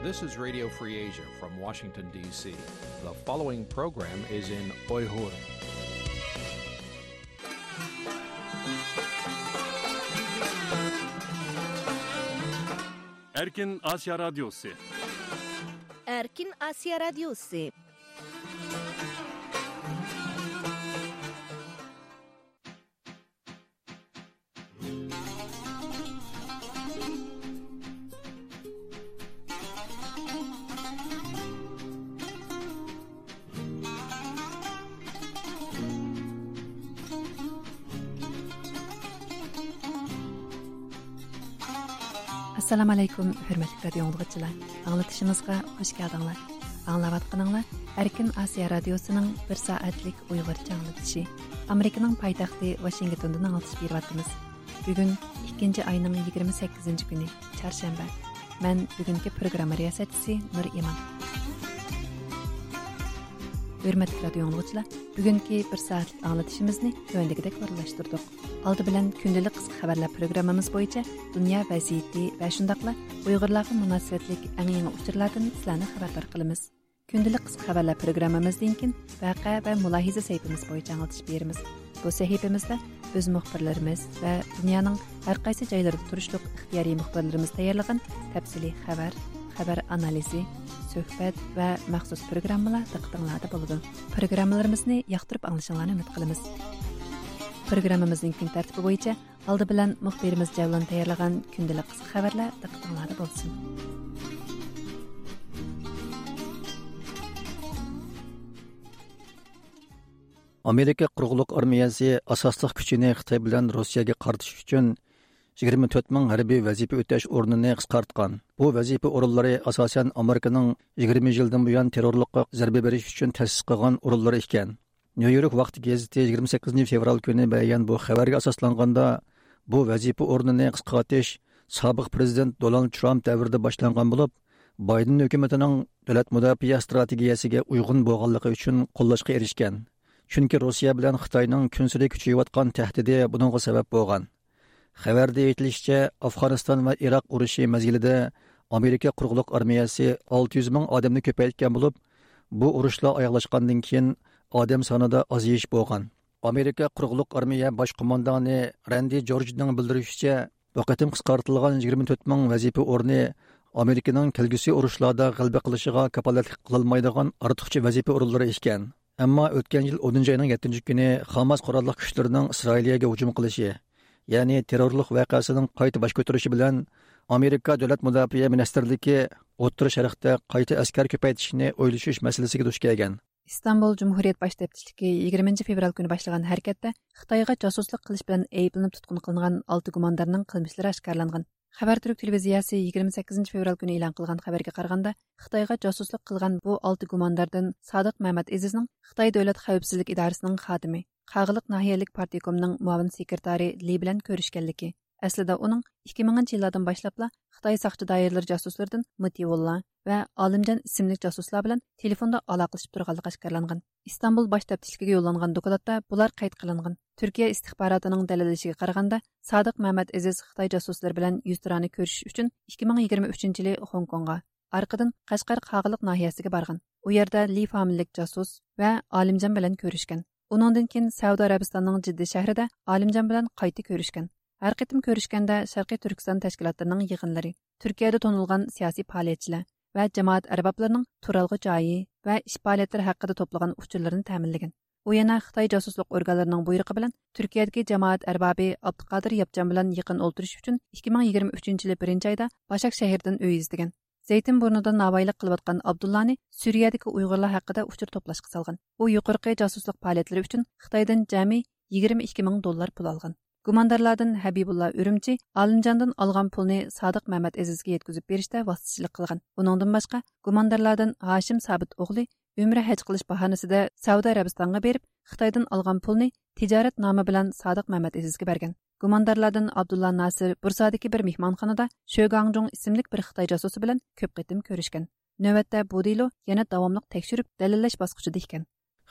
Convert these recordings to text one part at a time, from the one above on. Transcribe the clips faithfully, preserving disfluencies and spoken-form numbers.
This is Radio Free Asia from Washington, D C. The following program is in Uyghur. Erkin Asya Radyosu. Erkin Asya Radyosu. ئەسسالامۇ ئەلەيكۇم، ھۆرمەتلىك رادىيو ئاڭلىغۇچىلار. ئاڭلىتىشىمىزغا خۇش كەلدىڭلار. ئاڭلاۋاتقىنىڭلار ئەركىن ئاسىيا رادىيوسىنىڭ بىر سائەتلىك ئۇيغۇرچە ئاڭلىتىشى. ئامېرىكىنىڭ پايتەختى ۋاشىنگتوندىن ئاڭلىتىش بېرىۋاتىمىز. بۈگۈن ئىككىنچى ئاينىڭ يىگىرمە سەككىزىنچى كۈنى، چارشەنبە. مەن بۈگۈنكى پروگرامما رىياسەتچىسى نۇر ئىمان. ھۆرمەتلىك رادىيو ئاڭلىغۇچىلار، بۈگۈنكى بىر سائەتلىك ئاڭلىتىشىمىزنى تۆۋەندىكىدەك ئورۇنلاشتۇردۇق. ئالدى بىلەن كۈندىلىك قىسقا خەۋەرلەر پروگراممىمىز بويىچە دۇنيا ۋەزىيىتى ۋە شۇنداقلا ئۇيغۇرلارغا مۇناسىۋەتلىك ئەڭ يېڭى ئۇچۇرلاردىن سىلەرنى خەۋەردار قىلىمىز. كۈندىلىك قىسقا خەۋەرلەر پروگراممىمىزدىن كېيىن ۋەقە ۋە مۇلاھىزە سەھىپىمىز بويىچە ئاڭلىتىش بېرىمىز. بۇ سەھىپىمىزدە ئۆز مۇخبىرلىرىمىز ۋە دۇنيانىڭ ھەر قايسى جايلىرىدا تۇرۇشلۇق ئىختىيارىي مۇخبىرلىرىمىز تەييارلىغان تەپسىلىي خەۋەر، خەۋەر ئانالىزى، سۆھبەت ۋە مەخسۇس پروگراممىلار دىققىتىڭلاردا بولىدۇ. پروگراممىلىرىمىزنى ياقتۇرۇپ ئاڭلىشىڭلارنى ئۈمىد قىلىمىز. پروگراممىمىزنىڭ كۈن تەرتىپى بويىچە ئالدى بىلەن مۇخبىرىمىز جەۋلان تەييارلىغان كۈندىلىك قىسقا خەۋەرلەر دىققىتىڭلاردا بولسۇن. ئامېرىكا قۇرۇقلۇق ئارمىيەسى ئاساسلىق كۈچىنى خىتاي بىلەن روسىيەگە قارىتىش ئۈچۈن يىگىرمە تۆت مىڭ ھەربىي ۋەزىپە ئۆتەش ئورنىنى قىسقارتقان. بۇ ۋەزىپە ئورۇنلىرى ئاساسەن ئامېرىكىنىڭ يىگىرمە يىلدىن بۇيان تېررورلۇققا زەربە بېرىش ئۈچۈن تەسىس قىلغان ئورۇنلىرى ئىكەن. نيۇ يورك ۋاقتى گېزىتى يىگىرمە سەككىزىنچى فېۋرال كۈنى بەرگەن بۇ خەۋەرگە ئاساسلانغاندا، بۇ ۋەزىپە ئورنىنى قىسقارتىش سابىق پىرېزىدېنت دونالد ترامپ دەۋرىدە باشلانغان بولۇپ، بايدېن ھۆكۈمىتىنىڭ دۆلەت مۇداپىئە ئىستراتېگىيەسىگە ئۇيغۇن بولغانلىقى ئۈچۈن قوللاشقا ئېرىشكەن. چۈنكى روسىيە بىلەن خىتاينىڭ كۈنسېرى كۈچىيىۋاتقان تەھدىتى بۇنىڭغا سەۋەب بولغان. خەۋەردە ئېيتىلىشىچە، ئافغانىستان ۋە ئىراق ئۇرۇشى مەزگىلىدە ئامېرىكا قۇرۇقلۇق ئارمىيەسى ئالتە يۈز مىڭ ئادەمنى كۆپەيتكەن بولۇپ، بۇ ئۇرۇشلار ئاياغلاشقاندىن كېيىن ئادەم سانىدا ئازىيىش بولغان. ئامېرىكا قۇرۇقلۇق ئارمىيە باش قوماندانى راندى جورجنىڭ بىلدۈرۈشىچە، بۇ قېتىم قىسقارتىلغان يىگىرمە تۆت مىڭ ۋەزىپە ئورنى ئامېرىكىنىڭ كەلگۈسى ئۇرۇشلاردا غەلىبە قىلىشىغا كاپالەتلىك قىلالمايدىغان ئارتۇقچە ۋەزىپە ئورۇنلىرى ئىكەن. ئەمما ئۆتكەن يىل ئونىنچى ئاينىڭ يەتتىنچى كۈنى خاماس قوراللىق كۈچلىرىنىڭ ئىسرائىلىيەگە ھۇجۇم قىلىشى، يەنى تېررورلۇق ۋەقەسىنىڭ قايتا باش كۆتۈرۈشى بىلەن ئامېرىكا دۆلەت مۇداپىئە مىنىستىرلىكى ئوتتۇرا شەرقتە قايتا ئەسكەر كۆپەيتىشنى ئويلىشىش مەسىلىسىگە دۇچ كەلگەن. ئىستانبۇل جۇمھۇرىيەت باش تەپتىچىلىكى يىگىرمىنچى فېۋرال كۈنى باشلىغان ھەرىكەتتە خىتايغا جاسۇسلۇق قىلىش بىلەن ئەيىبلىنىپ تۇتقۇن قىلىنغان ئالتە گۇماندارنىڭ قىلمىشلىرى ئاشكارىلانغان. خەۋەر تۈرك تېلېۋىزىيەسى يىگىرمە سەككىزىنچى فېۋرال كۈنى ئېلان قىلغان خەۋەرگە قارىغاندا، خىتايغا جاسۇسلۇق قىلغان بۇ ئالتە گۇمانداردىن سادىق مەمەت ئېزىزنىڭ خىتاي دۆلەت خەۋپسىزلىك ئىدارىسىنىڭ خادىمى، قاغىلىق ناھىيەلىك پارتكومنىڭ مۇئاۋىن سېكرېتارى لى بىلەن كۆرۈشكەنلىكى، ئەسلىدە ئۇنىڭ ئىككى مىڭىنچى يىللاردىن باشلاپلا خىتاي ساقچى دائىرىلىرى جاسۇسلىرىدىن مۇتىۋۇللا ۋە ئالىمجان ئىسىملىك جاسۇسلار بىلەن تېلېفوندا ئالاقىلىشىپ تۇرغانلىقى ئاشكارىلانغان. ئىستانبۇل باش تەپتىچىلىكىگە يوللانغان دوكلاتتا بۇلار قەيت قىلىنغان. تۈركىيە ئىستىخباراتىنىڭ دەلىللىشىگە قارىغاندا، سادىق مەمەت ئېزىز خىتاي جاسۇسلىرى بىلەن يۈزتۇرانە كۆرۈشۈش ئۈچۈن ئىككى مىڭ يىگىرمە ئۈچىنچى يىلى خوڭكوڭغا، ئارقىدىن قەشقەر قاغىلىق ناھىيەسىگە بارغان. ئۇ يەردە لى فامىلىلىك جاسۇس ۋە ئالىمجان بىلەن كۆرۈشكەن. ئۇنىڭدىن كېيىن سەئۇدى ئەرەبىستاننىڭ جىددە شەھىرىدە ئالىمجان بىلەن قايتا كۆرۈشكەن. ھەر قېتىم كۆرۈشكەندە شەرقىي تۈركىستان تەشكىلاتلىرىنىڭ يىغىنلىرى، تۈركىيەدە تونۇلغان سىياسىي پائالىيەتچىلەر ۋە جامائەت ئەربابلىرىنىڭ تۇرالغۇ جايى ۋە ئىش پائالىيەتلىرى ھەققىدە توپلىغان ئۇچۇرلىرىنى تەمىنلىگەن. ئۇ يەنە خىتاي جاسۇسلۇق ئورگانلىرىنىڭ بۇيرۇقى بىلەن تۈركىيەدىكى جامائەت ئەربابى ئابدۇقادىر ياپچان بىلەن يېقىن ئولتۇرۇش ئۈچۈن ئىككى مىڭ يىگىرمە ئۈچىنچى يىلى بىرىنچى ئايدا باشاك شەھىرىدىن ئۆي ئىزدىگەن. زەيتىن بۇرنىدا ناۋايىلىق قىلىۋاتقان ئابدۇللانى سۈرىيەدىكى ئۇيغۇرلار ھەققىدە ئۇچۇر توپلاشقا سالغان. ئۇ يۇقىرىقى جاسۇسلۇق پائالىيەتلىرى ئۈچۈن خىتايدىن جەمئىي يىگىرمە ئىككى مىڭ دوللار پۇل ئالغان. گۇماندارلاردىن ھەبىبۇللا ئۈرۈمچى ئالىمجاندىن ئالغان پۇلنى سادىق مەمەت ئېزىزگە يەتكۈزۈپ بېرىشتە ۋاسىتىچىلىك قىلغان. ئۇنىڭدىن باشقا، گۇماندارلاردىن ھاشىم سابىت ئوغلى ئۆمرە ھەج قىلىش باھانىسىدە سەئۇدى ئەرەبىستانغا بېرىپ، خىتايدىن ئالغان پۇلنى تىجارەت نامى بىلەن سادىق مەمەت ئېزىزگە بەرگەن. گۇماندارلاردىن ئابدۇللا ناسىر بۇرسادىكى بىر مېھمانخانىدا شۆگاڭجۇڭ ئىسىملىك بىر خىتاي جاسۇسى بىلەن كۆپ قېتىم كۆرۈشكەن. نۆۋەتتە بۇ دېلو يەنە داۋاملىق تەكشۈرۈپ دەلىللەش باسقۇچىدا ئىكەن.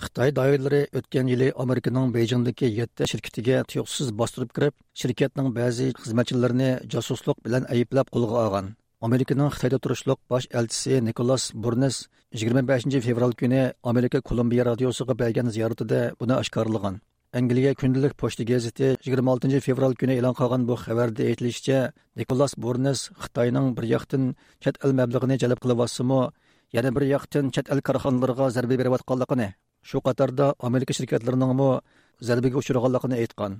خىتاي دائىرىلىرى ئۆتكەن يىلى ئامېرىكىنىڭ بېيجىڭدىكى يەتتە شىركىتىگە تۇيۇقسىز باستۇرۇپ كىرىپ، شىركەتنىڭ بەزى خىزمەتچىلىرىنى جاسۇسلۇق بىلەن ئەيىبلەپ قولغا ئالغان. ئامېرىكىنىڭ خىتايدا تۇرۇشلۇق باش ئەلچىسى نىكولاس بۇرنېس يىگىرمە بەشىنچى فېۋرال كۈنى ئامېرىكا كولومبىيە رادىيوسىغا بەرگەن زىيارىتىدە بۇنى ئاشكارىلىغان. ئەنگلىيە كۈندىلىك پوچتا گېزىتى يىگىرمە ئالتىنچى فېۋرال كۈنى ئېلان قىلغان بۇ خەۋەردە ئېيتىلىشىچە، نىكولاس بۇرنېس خىتاينىڭ بىر ياقتىن چەت ئەل مەبلىغىنى جەلپ قىلىۋاتسىمۇ، يەنە بىر ياقتىن چەت ئەل كارخانىلىرىغا زەربە بېرىۋاتقانلىقىنى، شۇ قاتاردا ئامېرىكا شىركەتلىرىنىڭمۇ زەربىگە ئۇچرىغانلىقىنى ئېيتقان.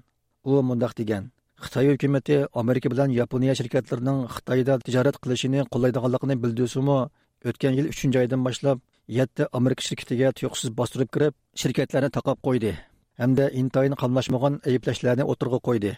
ئۇ مۇنداق دېگەن: «خىتاي ھۆكۈمىتى ئامېرىكا بىلەن ياپونىيە شىركەتلىرىنىڭ خىتايدا تىجارەت قىلىشىنى قوللايدىغانلىقىنى بىلدۈرسىمۇ، ئۆتكەن يىل ئۈچىنچى ئايدىن باشلاپ يەتتە ئامېرىكا شىركىتىگە تۇيۇقسىز باستۇرۇپ كىرىپ، شىركەتلەرنى تاقاپ قويدى ھەمدە ئىنتايىن قاملاشمىغان ئەيىبلەشلەرنى ئوتتۇرىغا قويدى.»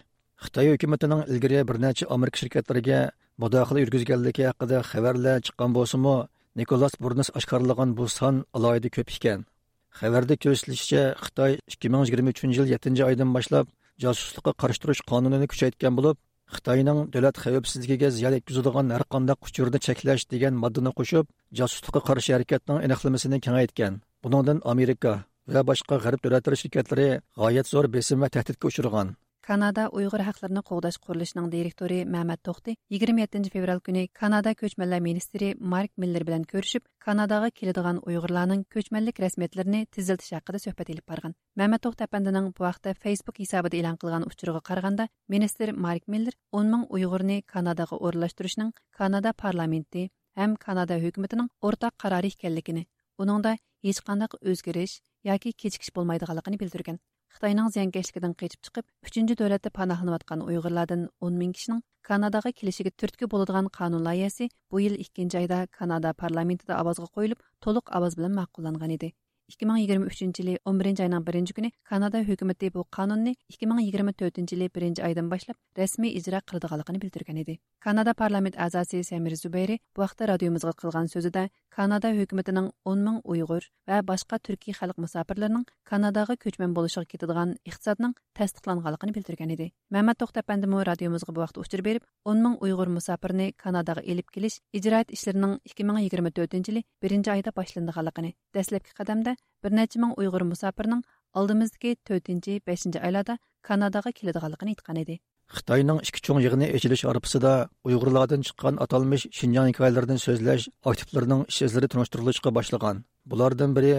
خىتاي ھۆكۈمىتىنىڭ ئىلگىرى بىر نەچچە ئامېرىكا شىركەتلىرىگە مۇداخىلە يۈرگۈزگەنلىكى ھەققىدە خەۋەرلەر چىققان بولسىمۇ، نىكولاس بۇرنېس ئاشكارىلىغان بۇ سان ئالاھىدە كۆپ ئىكەن. خەۋەردە كۆرسىتىلىشىچە، خىتاي ئىككى مىڭ يىگىرمە ئۈچىنچى يىل يەتتىنچى ئايدىن باشلاپ جاسۇسلۇققا قارشى تۇرۇش قانۇنىنى كۈچەيتكەن بولۇپ، خىتاينىڭ دۆلەت خەۋپسىزلىكىگە زىيان يەتكۈزىدىغان ھەرقانداق ئۇچۇرنى چەكلەش دېگەن ماددىنى قوشۇپ، جاسۇسلۇققا قارشى ھەرىكەتنىڭ ئېنىقلىمىسىنى كېڭەيتكەن. بۇنىڭدىن ئامېرىكا ۋە باشقا غەرب دۆلەتلىرى شىركەتلىرى غايەت زور بېسىم ۋە تەھدىتكە ئۇچرىغان. كانادا ئۇيغۇر ھەقلىرىنى قوغداش قۇرۇلۇشىنىڭ دىرېكتورى مەمەت توختى يىگىرمە يەتتىنچى فېۋرال كۈنى كانادا كۆچمەنلەر مىنىستىرى مارك مىللېر بىلەن كۆرۈشۈپ، كاناداغا كېلىدىغان ئۇيغۇرلارنىڭ كۆچمەنلىك رەسمىيەتلىرىنى تېزلىتىش ھەققىدە سۆھبەت ئېلىپ بارغان. مەمەت توختى ئەپەندىنىڭ بۇ ھەقتە فېيسبۇك ھېسابىدا ئېلان قىلغان ئۇچۇرىغا قارىغاندا، مىنىستىر مارك مىللېر ئون مىڭ ئۇيغۇرنى كاناداغا ئورۇنلاشتۇرۇشنىڭ كانادا پارلامېنتى ھەم كانادا ھۆكۈمىتىنىڭ ئورتاق قارارى ئىكەنلىكىنى، ئۇنىڭدا ھېچقانداق ئۆزگىرىش ياكى كېچىكىش بولمايدىغانلىقىنى بىلدۈرگەن. خىتاينىڭ زىيانكەشلىكىدىن قېچىپ چىقىپ، ئۈچىنچى دۆلەتتە پاناھلىنىۋاتقان ئۇيغۇرلاردىن ئون مىڭ كىشىنىڭ كاناداغا كېلىشىگە تۈرتكە بولىدىغان قانۇن لايىھەسى بۇ يىل ئىككىنچى ئايدا كانادا پارلامېنتىدا ئاۋازغا قويۇلۇپ، تولۇق ئاۋاز بىلەن ماقۇللانغان ئىدى. ئىككى مىڭ يىگىرمە ئۈچىنچى يىلى ئون بىرىنچى ئاينىڭ بىرىنچى كۈنى كانادا ھۆكۈمىتى بۇ قانۇننى ئىككى مىڭ يىگىرمە تۆتىنچى يىلى بىرىنچى ئايدىن باشلاپ رەسمىي ئىجرا قىلىدىغانلىقىنى بىلدۈرگەن ئىدى. كانادا پارلامېنت ئەزاسى سەمىر زۇبەيرى بۇ ھەقتە رادىيومىزغا قىلغان سۆزىدە، كانادا ھۆكۈمىتىنىڭ ئون مىڭ ئۇيغۇر ۋە باشقا تۈركىي خەلق مۇساپىرلىرىنىڭ كاناداغا كۆچمەن بولۇشىغا كېتىدىغان ئىقتىسادنىڭ تەستىقلانغانلىقىنى بىلدۈرگەن ئىدى. مەمەت توختى ئەپەندىمۇ رادىيومىزغا بۇ ھەقتە ئۇچۇر بېرىپ، ئون مىڭ ئۇيغۇر مۇساپىرنى كاناداغا ئېلىپ كېلىش ئىجرائىيەت ئىشلىرىنىڭ ئىككى مىڭ يىگىرمە تۆتىنچى يىلى بىرىنچى ئايدا باشلىنىدىغانلىقىنى، دەسلەپكى قەدەمدە بىر نەچچە مىڭ ئۇيغۇر مۇساپىرنىڭ ئالدىمىزدىكى تۆتىنچى، بەشىنچى ئايلاردا كاناداغا كېلىدىغانلىقىنى ئېيتقان ئىدى. خىتاينىڭ ئىككى چوڭ يىغىنى ئېچىلىش ئارپىسىدا ئۇيغۇرلاردىن چىققان ئاتالمىش شىنجاڭ ھېكايىلىرىدىن سۆزلەش ئاكتىپلىرىنىڭ ئىش ئىزلىرى تونۇشتۇرۇلۇشقا باشلىغان. بۇلاردىن بىرى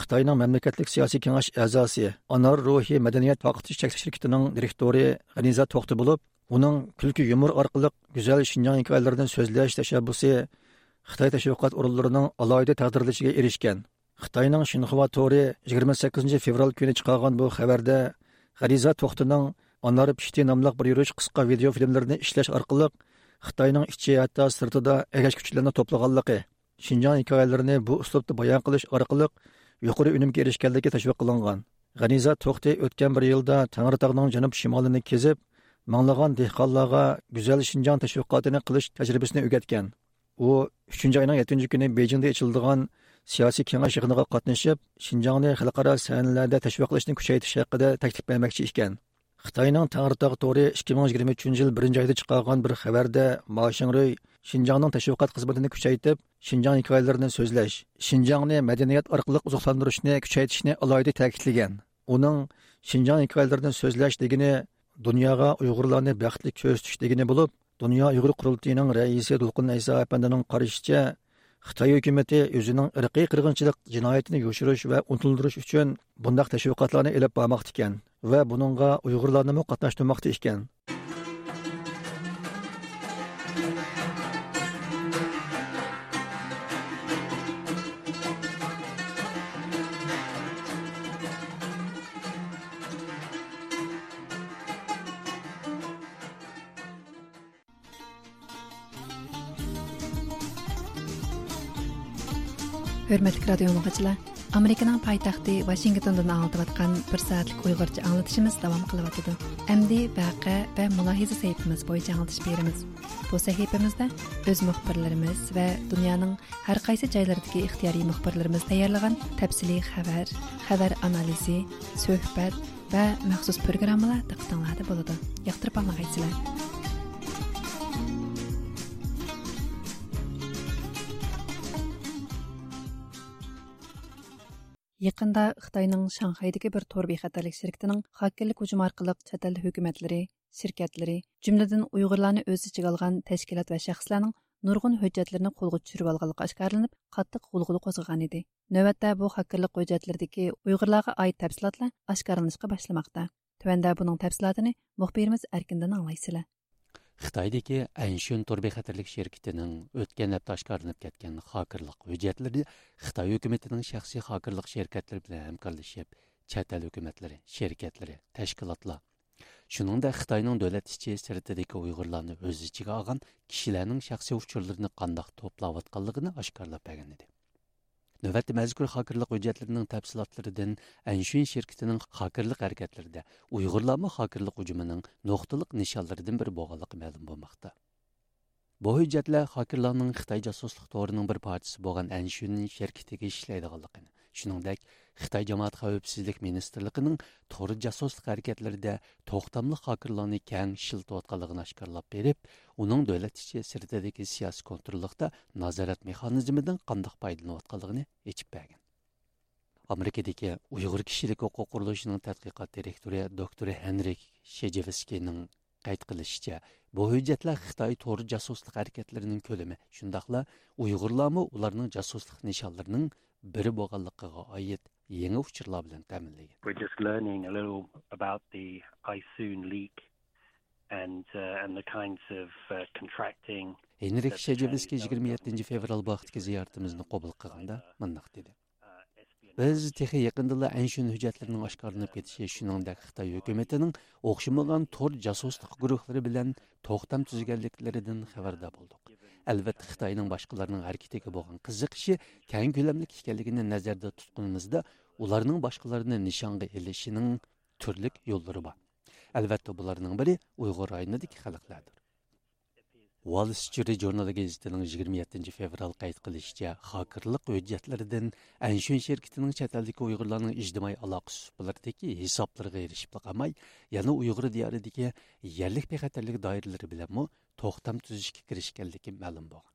خىتاينىڭ مەملىكەتلىك سىياسىي كېڭەش ئەزاسى، ئانار روھى مەدەنىيەت تارقىتىش چەكلىك شىركىتىنىڭ دىرېكتورى غەنىزە توختى بولۇپ، ئۇنىڭ كۈلكە يۇمۇر ئارقىلىق گۈزەل شىنجاڭ ھېكايىلىرىدىن سۆزلەش تەشەببۇسى خىتاي تەشۋىقات ئورۇنلىرىنىڭ ئالاھىدە تەقدىرلىشىگە ئېرىشكەن. خىتاينىڭ شىنخۇا تورى يىگىرمە سەككىزىنچى فېۋرال كۈنى چىقارغان بۇ خەۋەردە، غەنىزە توختىنىڭ ئانار پىشتى ناملىق بىر يۈرۈش قىسقا ۋىدېئو فىلىملىرىنى ئىشلەش ئارقىلىق خىتاينىڭ ئىچى ھەتتا سىرتىدا ئەگەشكۈچىلەرنى توپلىغانلىقى، شىنجاڭ ھېكايىلىرىنى بۇ ئۇسلۇبتا بايان قىلىش ئارقىلىق يۇقىرى ئۈنۈمگە ئېرىشكەنلىكى تەشۋىق قىلىنغان. غەنىزە توختى ئۆتكەن بىر يىلدا تەڭرىتاغنىڭ جەنۇب شىمالىنى كېزىپ، مىڭلىغان دېھقانلارغا گۈزەل شىنجاڭ تەشۋىقاتىنى قىلىش تەجرىبىسىنى ئۆگەتكەن. ئۇ ئۈچىنچى ئاينىڭ يەتتىنچى كۈنى بېيجىڭدا ئېچىلىدىغان سىياسىي كېڭەش يىغىنىغا قاتنىشىپ، شىنجاڭنى خەلقئارا سەھنىلەردە تەشۋىقلاشنى كۈچەيتىش ھەققىدە تەكلىپ بەرمەكچى ئىكەن. خىتاينىڭ تەڭرىتاغ تورى ئىككى مىڭ يىگىرمە ئۈچىنچى يىل بىرىنچى ئايدا چىقارغان بىر خەۋەردە، ما شىڭرۇي شىنجاڭنىڭ تەشۋىقات خىزمىتىنى كۈچەيتىپ، شىنجاڭ ھېكايىلىرىنى سۆزلەش، شىنجاڭنى مەدەنىيەت ئارقىلىق ئوزۇقلاندۇرۇشنى كۈچەيتىشنى ئالاھىدە تەكىتلىگەن. ئۇنىڭ شىنجاڭ ھېكايىلىرىدىن سۆزلەش دېگىنى دۇنياغا ئۇيغۇرلارنى بەختلىك كۆرسىتىش دېگىنى بولۇپ، دۇنيا ئۇيغۇر قۇرۇلتىيىنىڭ رەئىسى دولقۇن ئەيسا ئەپەندىنىڭ قارىشىچە، خىتاي ھۆكۈمىتى ئۆزىنىڭ ئىرقىي قىرغىنچىلىق جىنايىتىنى يوشۇرۇش ۋە ئۇنتۇلدۇرۇش ئۈچۈن بۇنداق تەشۋىقاتلارنى ئېلىپ بارماقتا ئىكەن ۋە بۇنىڭغا ئۇيغۇرلارنىمۇ قاتناشتۇرماقتا ئىكەن. ھۆرمەتلىك رادىيو ئاڭلىغۇچىلار، ئامېرىكىنىڭ پايتەختى ۋاشىنگتوندىن ئاڭلىتىۋاتقان بىر سائەتلىك ئۇيغۇرچە ئاڭلىتىشىمىز داۋام قىلىۋاتىدۇ. ئەمدى ۋەقە ۋە مۇلاھىزە سەھىپىمىز بويىچە ئاڭلىتىش بېرىمىز. بۇ سەھىپىمىزدە ئۆز مۇخبىرلىرىمىز ۋە دۇنيانىڭ ھەر قايسى جايلىرىدىكى ئىختىيارىي مۇخبىرلىرىمىز تەييارلىغان تەپسىلىي خەۋەر، خەۋەر ئانالىزى، سۆھبەت ۋە مەخسۇس پروگراممىلار دىققىتىڭلاردا بولىدۇ. ياقتۇرۇپ ئاڭلىغايسىلەر. يېقىندا خىتاينىڭ شاڭخەيدىكى بىر تور بىخەتەرلىك شىركىتىنىڭ خاككېرلىك ھۇجۇمى ئارقىلىق چەت ئەل ھۆكۈمەتلىرى، شىركەتلىرى، جۈملىدىن ئۇيغۇرلارنى ئۆز ئىچىگە ئالغان تەشكىلات ۋە شەخسلەرنىڭ نۇرغۇن ھۆججەتلىرىنى قولغا چۈشۈرۈۋالغانلىقى ئاشكارىلىنىپ، قاتتىق غۇلغۇلا قوزغىغانىدى. نۆۋەتتە بۇ خاكىرلىق ھۆججەتلىرىدىكى ئۇيغۇرلارغا ئائىت تەپسىلاتلار ئاشكارىلىنىشقا باشلىماقتا. تۆۋەندە بۇنىڭ تەپسىلاتىنى مۇخبىرىمىز ئەركىندىن ئاڭلايسىلەر. خىتايدىكى ئەنشۈن تور بىخەتەرلىك شىركىتىنىڭ ئۆتكەن ھەپتە ئاشكارىلىنىپ كەتكەن خاكىرلىق ھۆججەتلىرى خىتاي ھۆكۈمىتىنىڭ شەخسىي خاكىرلىق شىركەتلىرى بىلەن ھەمكارلىشىپ، چەت ئەل ھۆكۈمەتلىرى، شىركەتلىرى، تەشكىلاتلار، شۇنىڭدەك خىتاينىڭ دۆلەت ئىچى سىرتىدىكى ئۇيغۇرلارنى ئۆز ئىچىگە ئالغان كىشىلەرنىڭ شەخسىي ئۇچۇرلىرىنى قانداق توپلاۋاتقانلىقىنى ئاشكارىلاپ بەرگەن ئىدى. نۆۋەتتە مەزكۇر خاكىرلىق ھۆججەتلىرىنىڭ تەپسىلاتلىرىدىن ئەنشۈن شىركىتىنىڭ خاكىرلىق ھەرىكەتلىرىدە ئۇيغۇرلارمۇ خاكىرلىق ھۇجۇمىنىڭ نۇقتىلىق نىشانلىرىدىن بىرى بولغانلىقى مەلۇم بولماقتا. بۇ ھۆججەتلەر خاكىرلارنىڭ خىتاي جاسۇسلۇق تورىنىڭ بىر پارچىسى بولغان ئەنشۈن شىركىتىگە ئىشلەيدىغانلىقىنى، شۇنىڭدەك خىتاي جامائەت خەۋپسىزلىك مىنىستىرلىقىنىڭ تور جاسۇسلۇق ھەرىكەتلىرىدە توختاملىق خاكىرلارنى كەڭ ئىشلىتىۋاتقانلىقىنى ئاشكارىلاپ بېرىپ، ئۇنىڭ دۆلەت ئىچى سىرتىدىكى سىياسىي كونتروللۇقتا نازارەت مېخانىزمىدىن قانداق پايدىلىنىۋاتقانلىقىنى ئېچىپ بەرگەن. ئامېرىكىدىكى ئۇيغۇر كىشىلىك ھوقۇق قۇرۇلۇشىنىڭ تەتقىقات دىرېكتورى دوكتور ھېنرىك شېجېۋسكىينىڭ قەيت قىلىشىچە، بۇ ھۆججەتلەر خىتاي تور جاسۇسلۇق ھەرىكەتلىرىنىڭ كۆلىمى، شۇنداقلا ئۇيغۇرلارمۇ ئۇلارنىڭ جاسۇسلۇق نىشانلىرىنىڭ بىرى بولغانلىقىغا ئائىت يېڭى ئۇچۇرلار بىلەن تەمىنلىگەن. We're just learning a little about the I soon leak and, uh, and the kinds of, uh, contracting ھېنرىك شېجېۋسكىي يىگىرمە يەتتىنچى فېۋرال بۇ ھەقتىكى زىيارىتىمىزنى قوبۇل قىلغاندا مۇنداق دېدى. بىز تېخى يېقىندىلا ئەنشۈن ھۆججەتلىرىنىڭ ئاشكارىلىنىپ كېتىشى، شۇنىڭدەك خىتاي ھۆكۈمىتىنىڭ ئوخشىمىغان تور جاسۇسلۇق گۇرۇھلىرى بىلەن توختام تۈزگەنلىكلىرىدىن خەۋەردار بولدۇق. ئەلۋەتتە، خىتاينىڭ باشقىلارنىڭ ھەرىكىتىگە بولغان قىزىقىشى كەڭ كۆلەملىك ئىكەنلىكىنى نەزەردە تۇتقىنىمىزدا، ئۇلارنىڭ باشقىلارنى نىشانغا ئېلىشىنىڭ تۈرلۈك يوللىرى بار. ئەلۋەتتە، بۇلارنىڭ بىرى ئۇيغۇر رايونىدىكى خەلقلەردۇر. ۋال سترىت ژۇرنىلى گېزىتىنىڭ يىگىرمە يەتتىنچى فېۋرال قەيت قىلىشىچە، خاكىرلىق ھۆججەتلىرىدىن ئەنشۈن شىركىتىنىڭ چەت ئەلدىكى ئۇيغۇرلارنىڭ ئىجتىمائىي ئالاقە سۇپىلىرىدىكى ھېسابلىرىغا ئېرىشىپلا قالماي، يەنە ئۇيغۇر دىيارىدىكى يەرلىك بىخەتەرلىك دائىرىلىرى بىلەنمۇ توختام تۈزۈشكە كىرىشكەنلىكى مەلۇم بولغان.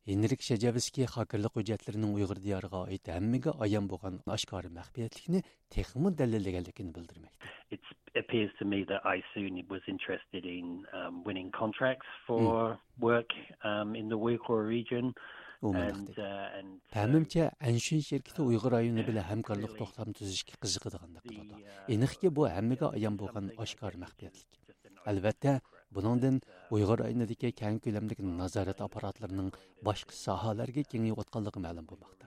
ھېنرىك شەجەۋسكىي خاكىرلىق ھۆججەتلىرىنىڭ ئۇيغۇر دىيارىغا ئائىت ھەممىگە ئايان بولغان ئاشكارا مەخپىيەتلىكنى تېخىمۇ دەلىللىگەنلىكىنى بىلدۈرمەكتە. It appears to me that I soon was interested in, um, winning contracts for work, um, in the Uyghur region. ئۇ مۇنداق دېدى. پەھمىمچە، ئەنشۈن شىركىتى ئۇيغۇر رايونى بىلەن ھەمكارلىق توختام تۈزۈشكە قىزىقىدىغاندەك قىلىدۇ. ئېنىقكى، بۇ ھەممىگە ئايان بولغان ئاشكارا مەخپىيەتلىك. ئەلۋەتتە، بۇنىڭدىن ئۇيغۇر رايونىدىكى كەڭ كۆلەملىك نازارەت ئاپپاراتلىرىنىڭ باشقا ساھەلەرگە كېڭىيىۋاتقانلىقى مەلۇم بولماقتا.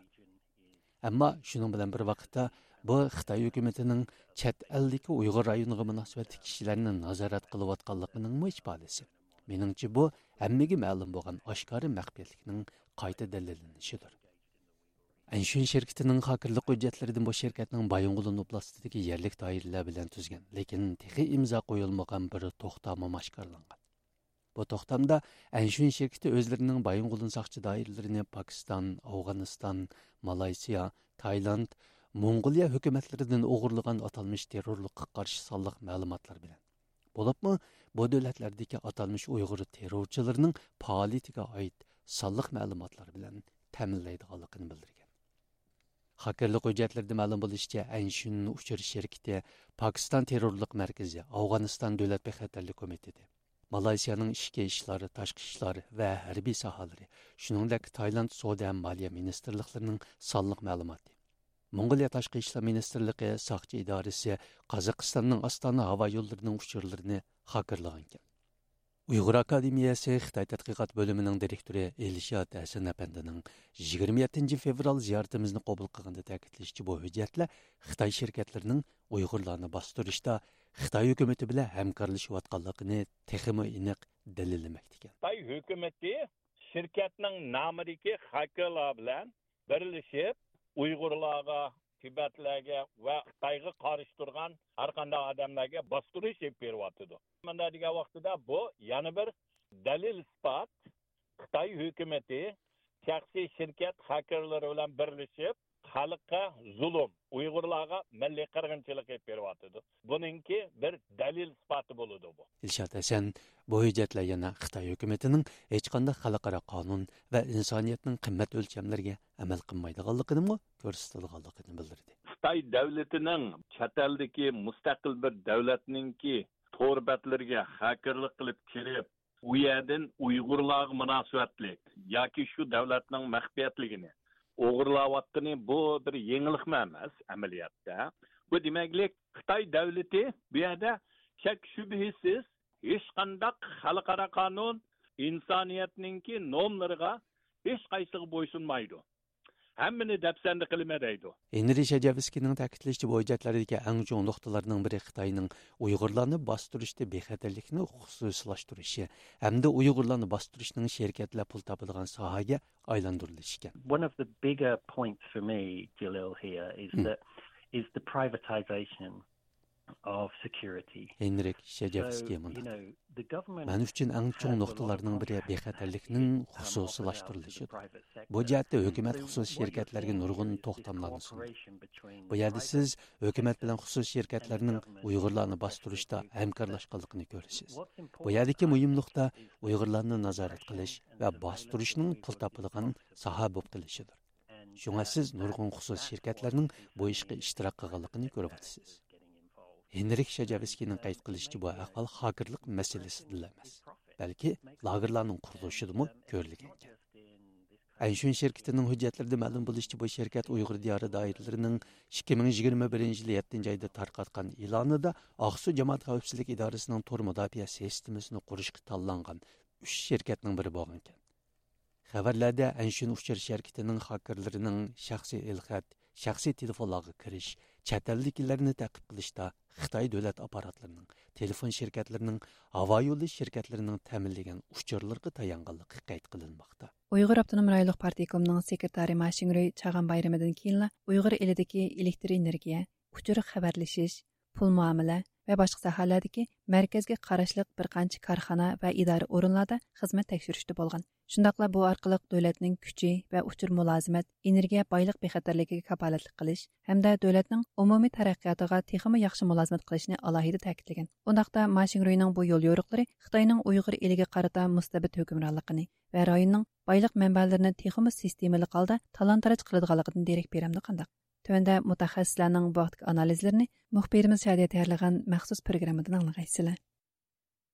ئەمما شۇنىڭ بىلەن بىر ۋاقىتتا، بۇ خىتاي ھۆكۈمىتىنىڭ چەت ئەلدىكى ئۇيغۇر رايونىغا مۇناسىۋەتلىك كىشىلەرنى نازارەت قىلىۋاتقانلىقىنىڭمۇ ئىپادىسى. مېنىڭچە، بۇ ھەممىگە مەلۇم بولغان ئاشكارا مەخپىيەتلىكنىڭ قايتا دەلىللىنىشىدۇر. ئەنشۈن شىركىتىنىڭ خاكىرلىق ھۆججەتلىرىدىن بۇ شىركەتنىڭ بايىنغولىن ئوبلاستىدىكى يەرلىك دائىرىلەر بىلەن تۈزگەن، لېكىن تېخى ئىمزا قويۇلمىغان بىر توختامىمۇ ئاشكارىلانغان. بۇ توختامدا ئەنشۈن شىركىتى ئۆزلىرىنىڭ بايىنغولىن ساقچى دائىرىلىرىنى پاكىستان، ئافغانىستان، مالايسىيا، تايلاند، موڭغۇلىيە ھۆكۈمەتلىرىدىن ئوغرىلىغان ئاتالمىش تېررورلۇققا قارشى سانلىق مەلۇماتلار بىلەن، بولۇپمۇ بۇ دۆلەتلەردىكى ئاتالمىش ئۇيغۇر تېررورچىلىرىنىڭ پائالىيىتىگە ئائىت سانلىق مەلۇماتلار بىلەن تەمىنلەيدىغانلىقىنى بىلدۈرگەن. خاكىرلىق ھۆججەتلىرىدە مەلۇم بولۇشىچە، ئەنشۈن ئۇچۇر شىركىتى پاكىستان تېررورلۇق مەركىزى، ئافغانىستان دۆلەت بىخەتەرلىك كومىتېتى، مالايسىيانىڭ ئىچكى ئىشلار، تاشقى ئىشلار ۋە ھەربىي ساھەلىرى، شۇنىڭدەك تايلاند سودا ھەم مالىيە مىنىستىرلىقلىرىنىڭ سانلىق مەلۇماتى، موڭغۇلىيە تاشقى ئىشلار مىنىستىرلىقى ساقچى ئىدارىسى قازاقىستاننىڭ ئاستانا ھاۋا يوللىرىنىڭ ئۇچۇرلىرىنى خاكىرلىغانىكەن. ئۇيغۇر ئاكادېمىيەسى خىتاي تەتقىقات بۆلۈمىنىڭ دىرېكتورى ئېلشات ھەسەن ئەپەندىنىڭ يىگىرمە يەتتىنچى فېۋرال زىيارىتىمىزنى قوبۇل قىلغاندا تەكىتلىشىچە، بۇ ھۆججەتلەر خىتاي شىركەتلىرىنىڭ ئۇيغۇرلارنى باستۇرۇشتا خىتاي ھۆكۈمىتى بىلەن ھەمكارلىشىۋاتقانلىقىنى تېخىمۇ ئېنىق دەلىللىمەكتىكەن. خىتاي ھۆكۈمىتى شىركەتنىڭ نامىدىكى خاكېرلار بىلەن بىرلىشىپ، ئۇيغۇرلارغا، تىبەتلەرگە ۋە خىتايغا قارشى تۇرغان ھەر قانداق ئادەملەرگە باستۇرۇش ئېلىپ بېرىۋاتىدۇ. مۇنداق دېگەن ۋاقتىدا، بۇ يەنە بىر دەلىل-ئىسپات، خىتاي ھۆكۈمىتى شەخسىي شىركەت خاكېرلىرى بىلەن بىرلىشىپ، خەلققە زۇلۇم، ئۇيغۇرلارغا مىللىي قىرغىنچىلىق ئېلىپ بېرىۋاتىدۇ. بۇنىڭكى بىر دەلىل-ئىسپاتى بولىدۇ بۇ. ئىلشات ھەسەن بۇ ھۆججەتلەر يەنە خىتاي ھۆكۈمىتىنىڭ ھېچقانداق خەلقئارا قانۇن ۋە ئىنسانىيەتنىڭ قىممەت ئۆلچەملىرىگە ئەمەل قىلمايدىغانلىقىنىمۇ كۆرسىتىدىغانلىقىنى بىلدۈردى. خىتاي دۆلىتىنىڭ چەت ئەلدىكى مۇستەقىل بىر دۆلەتنىڭكى تور بەتلىرىگە خاكېرلىق قىلىپ كىرىپ، ئۇ يەردىن ئۇيغۇرلارغا مۇناسىۋەتلىك ياكى شۇ دۆلەتنىڭ مەخپىيەتلىكىنى ئوغرىلاۋاتقىنى، بۇ بىر يېڭىلىقمۇ ئەمەس ئەمەلىيەتتە. بۇ دېمەكلىك، خىتاي دۆلىتى بۇ يەردە شەك شۈبھىسىز ھېچقانداق خەلقئارا قانۇن، ئىنسانىيەتنىڭكى نورمىلىرىغا ھېچقايسىغا بويسۇنمايدۇ. ھەممىنى دەپسەندە قىلىمەن دەيدۇ. ھېنرى شەجەۋسكىينىڭ تەكىتلىشىچە، بۇ ھۆججەتلەردىكى ئەڭ چوڭ نۇقتىلارنىڭ بىرى خىتاينىڭ ئۇيغۇرلارنى باستۇرۇشتا بىخەتەرلىكنى خۇسۇسىيلاشتۇرۇشى ھەمدە ئۇيغۇرلارنى باستۇرۇشنىڭ شىركەتلەر پۇل تاپىدىغان ساھەگە ئايلاندۇرۇلۇشى ئىكەن. One of the bigger points for me, Jalil, here is Hmm. that is the privatization of security. ھېنرىك شەجەۋسكىي مۇنداق دېدى. مەن ئۈچۈن ئەڭ چوڭ نۇقتىلارنىڭ بىرى بىخەتەرلىكنىڭ خۇسۇسىيلاشتۇرۇلۇشىدۇر. بۇ جەھەتتە ھۆكۈمەت خۇسۇسىي شىركەتلەرگە نۇرغۇن توختاملارنى سۇندى. بۇ يەردە سىز ھۆكۈمەت بىلەن خۇسۇسىي شىركەتلەرنىڭ ئۇيغۇرلارنى باستۇرۇشتا ھەمكارلاشقانلىقىنى كۆرىسىز. بۇ يەردىكى مۇھىم نۇقتا ئۇيغۇرلارنى نازارەت قىلىش ۋە باستۇرۇشنىڭ پۇل تاپىدىغان ساھە بولۇپ قېلىشىدۇر. شۇڭا سىز نۇرغۇن خۇسۇسىي شىركەتلەرنىڭ بۇ ئىشقا ئىشتىراك قىلغانلىقىنى كۆرۈۋاتىسىز. ھېنرىك شەجەۋسكىينىڭ قەيت قىلىشىچە، بۇ ئەھۋال خاكېرلىق مەسىلىسىدىلا ئەمەس، بەلكى لاگېرلارنىڭ قۇرۇلۇشىدىمۇ كۆرۈلگەنىكەن. ئەنشۈن شىركىتىنىڭ ھۆججەتلىرىدە مەلۇم بولۇشىچە، بۇ شىركەت ئۇيغۇر دىيارى دائىرىلىرىنىڭ ئىككى مىڭ يىگىرمە بىرىنچى يىلى يەتتىنچى ئايدا تارقاتقان ئېلانىدا ئاقسۇ جامائەت خەۋپسىزلىك ئىدارىسىنىڭ تور مۇداپىئە سىستېمىسىنى قۇرۇشقا تاللانغان ئۈچ شىركەتنىڭ بىرى بولغانىكەن. خەۋەرلەردە ئەنشۈن ئۇچۇر شىركىتىنىڭ خاكېرلىرىنىڭ شەخسىي ئېلخەت، شەخسىي تېلېفونلارغا كىرىش، چەت ئەلدىكىلەرنى تەقىب قىلىشتا خىتاي دۆلەت ئاپپاراتلىرىنىڭ، تېلېفون شىركەتلىرىنىڭ، ھاۋا يولى شىركەتلىرىنىڭ تەمىنلىگەن ئۇچۇرلىرىغا تايانغانلىقى قەيت قىلىنماقتا. ئۇيغۇر ئاپتونوم رايونلۇق پارتكومىنىڭ سېكرېتارى ما شىڭرۇي چاغان بايرىمىدىن كېيىنلا ئۇيغۇر ئېلىدىكى ئېلېكتر ئېنېرگىيە، ئۇچۇر خەۋەرلىشىش، پۇل مۇئامىلە ۋە باشقا ساھەلەردىكى مەركەزگە قاراشلىق بىر قانچە كارخانا ۋە ئىدارە ئورۇنلاردا خىزمەت تەكشۈرۈشتە بولغان. شۇنداقلا بۇ ئارقىلىق دۆلەتنىڭ كۈچى ۋە ئۇچۇر مۇلازىمەت، ئېنېرگىيە بايلىق بىخەتەرلىكىگە كاپالەتلىك قىلىش ھەمدە دۆلەتنىڭ ئومۇمىي تەرەققىياتىغا تېخىمۇ ياخشى مۇلازىمەت قىلىشنى ئالاھىدە تەكىتلىگەن. ئۇنداقتا ما شىڭرۇينىڭ بۇ يول يورۇقلىرى خىتاينىڭ ئۇيغۇر ئېلىگە قارىتا مۇستەبىت ھۆكۈمرانلىقىنى ۋە رايوننىڭ بايلىق مەنبەلىرىنى تېخىمۇ سىستېمىلىق ھالدا تالان-تاراج قىلىدىغانلىقىدىن دېرەك بېرەمدۇ قانداق؟ تۆۋەندە مۇتەخەسسىسلەرنىڭ بۇ ھەقتىكى ئانالىزلىرىنى مۇخبىرىمىز شادىيە تەييارلىغان مەخسۇس پروگراممىدىن ئاڭلىغايسىلەر.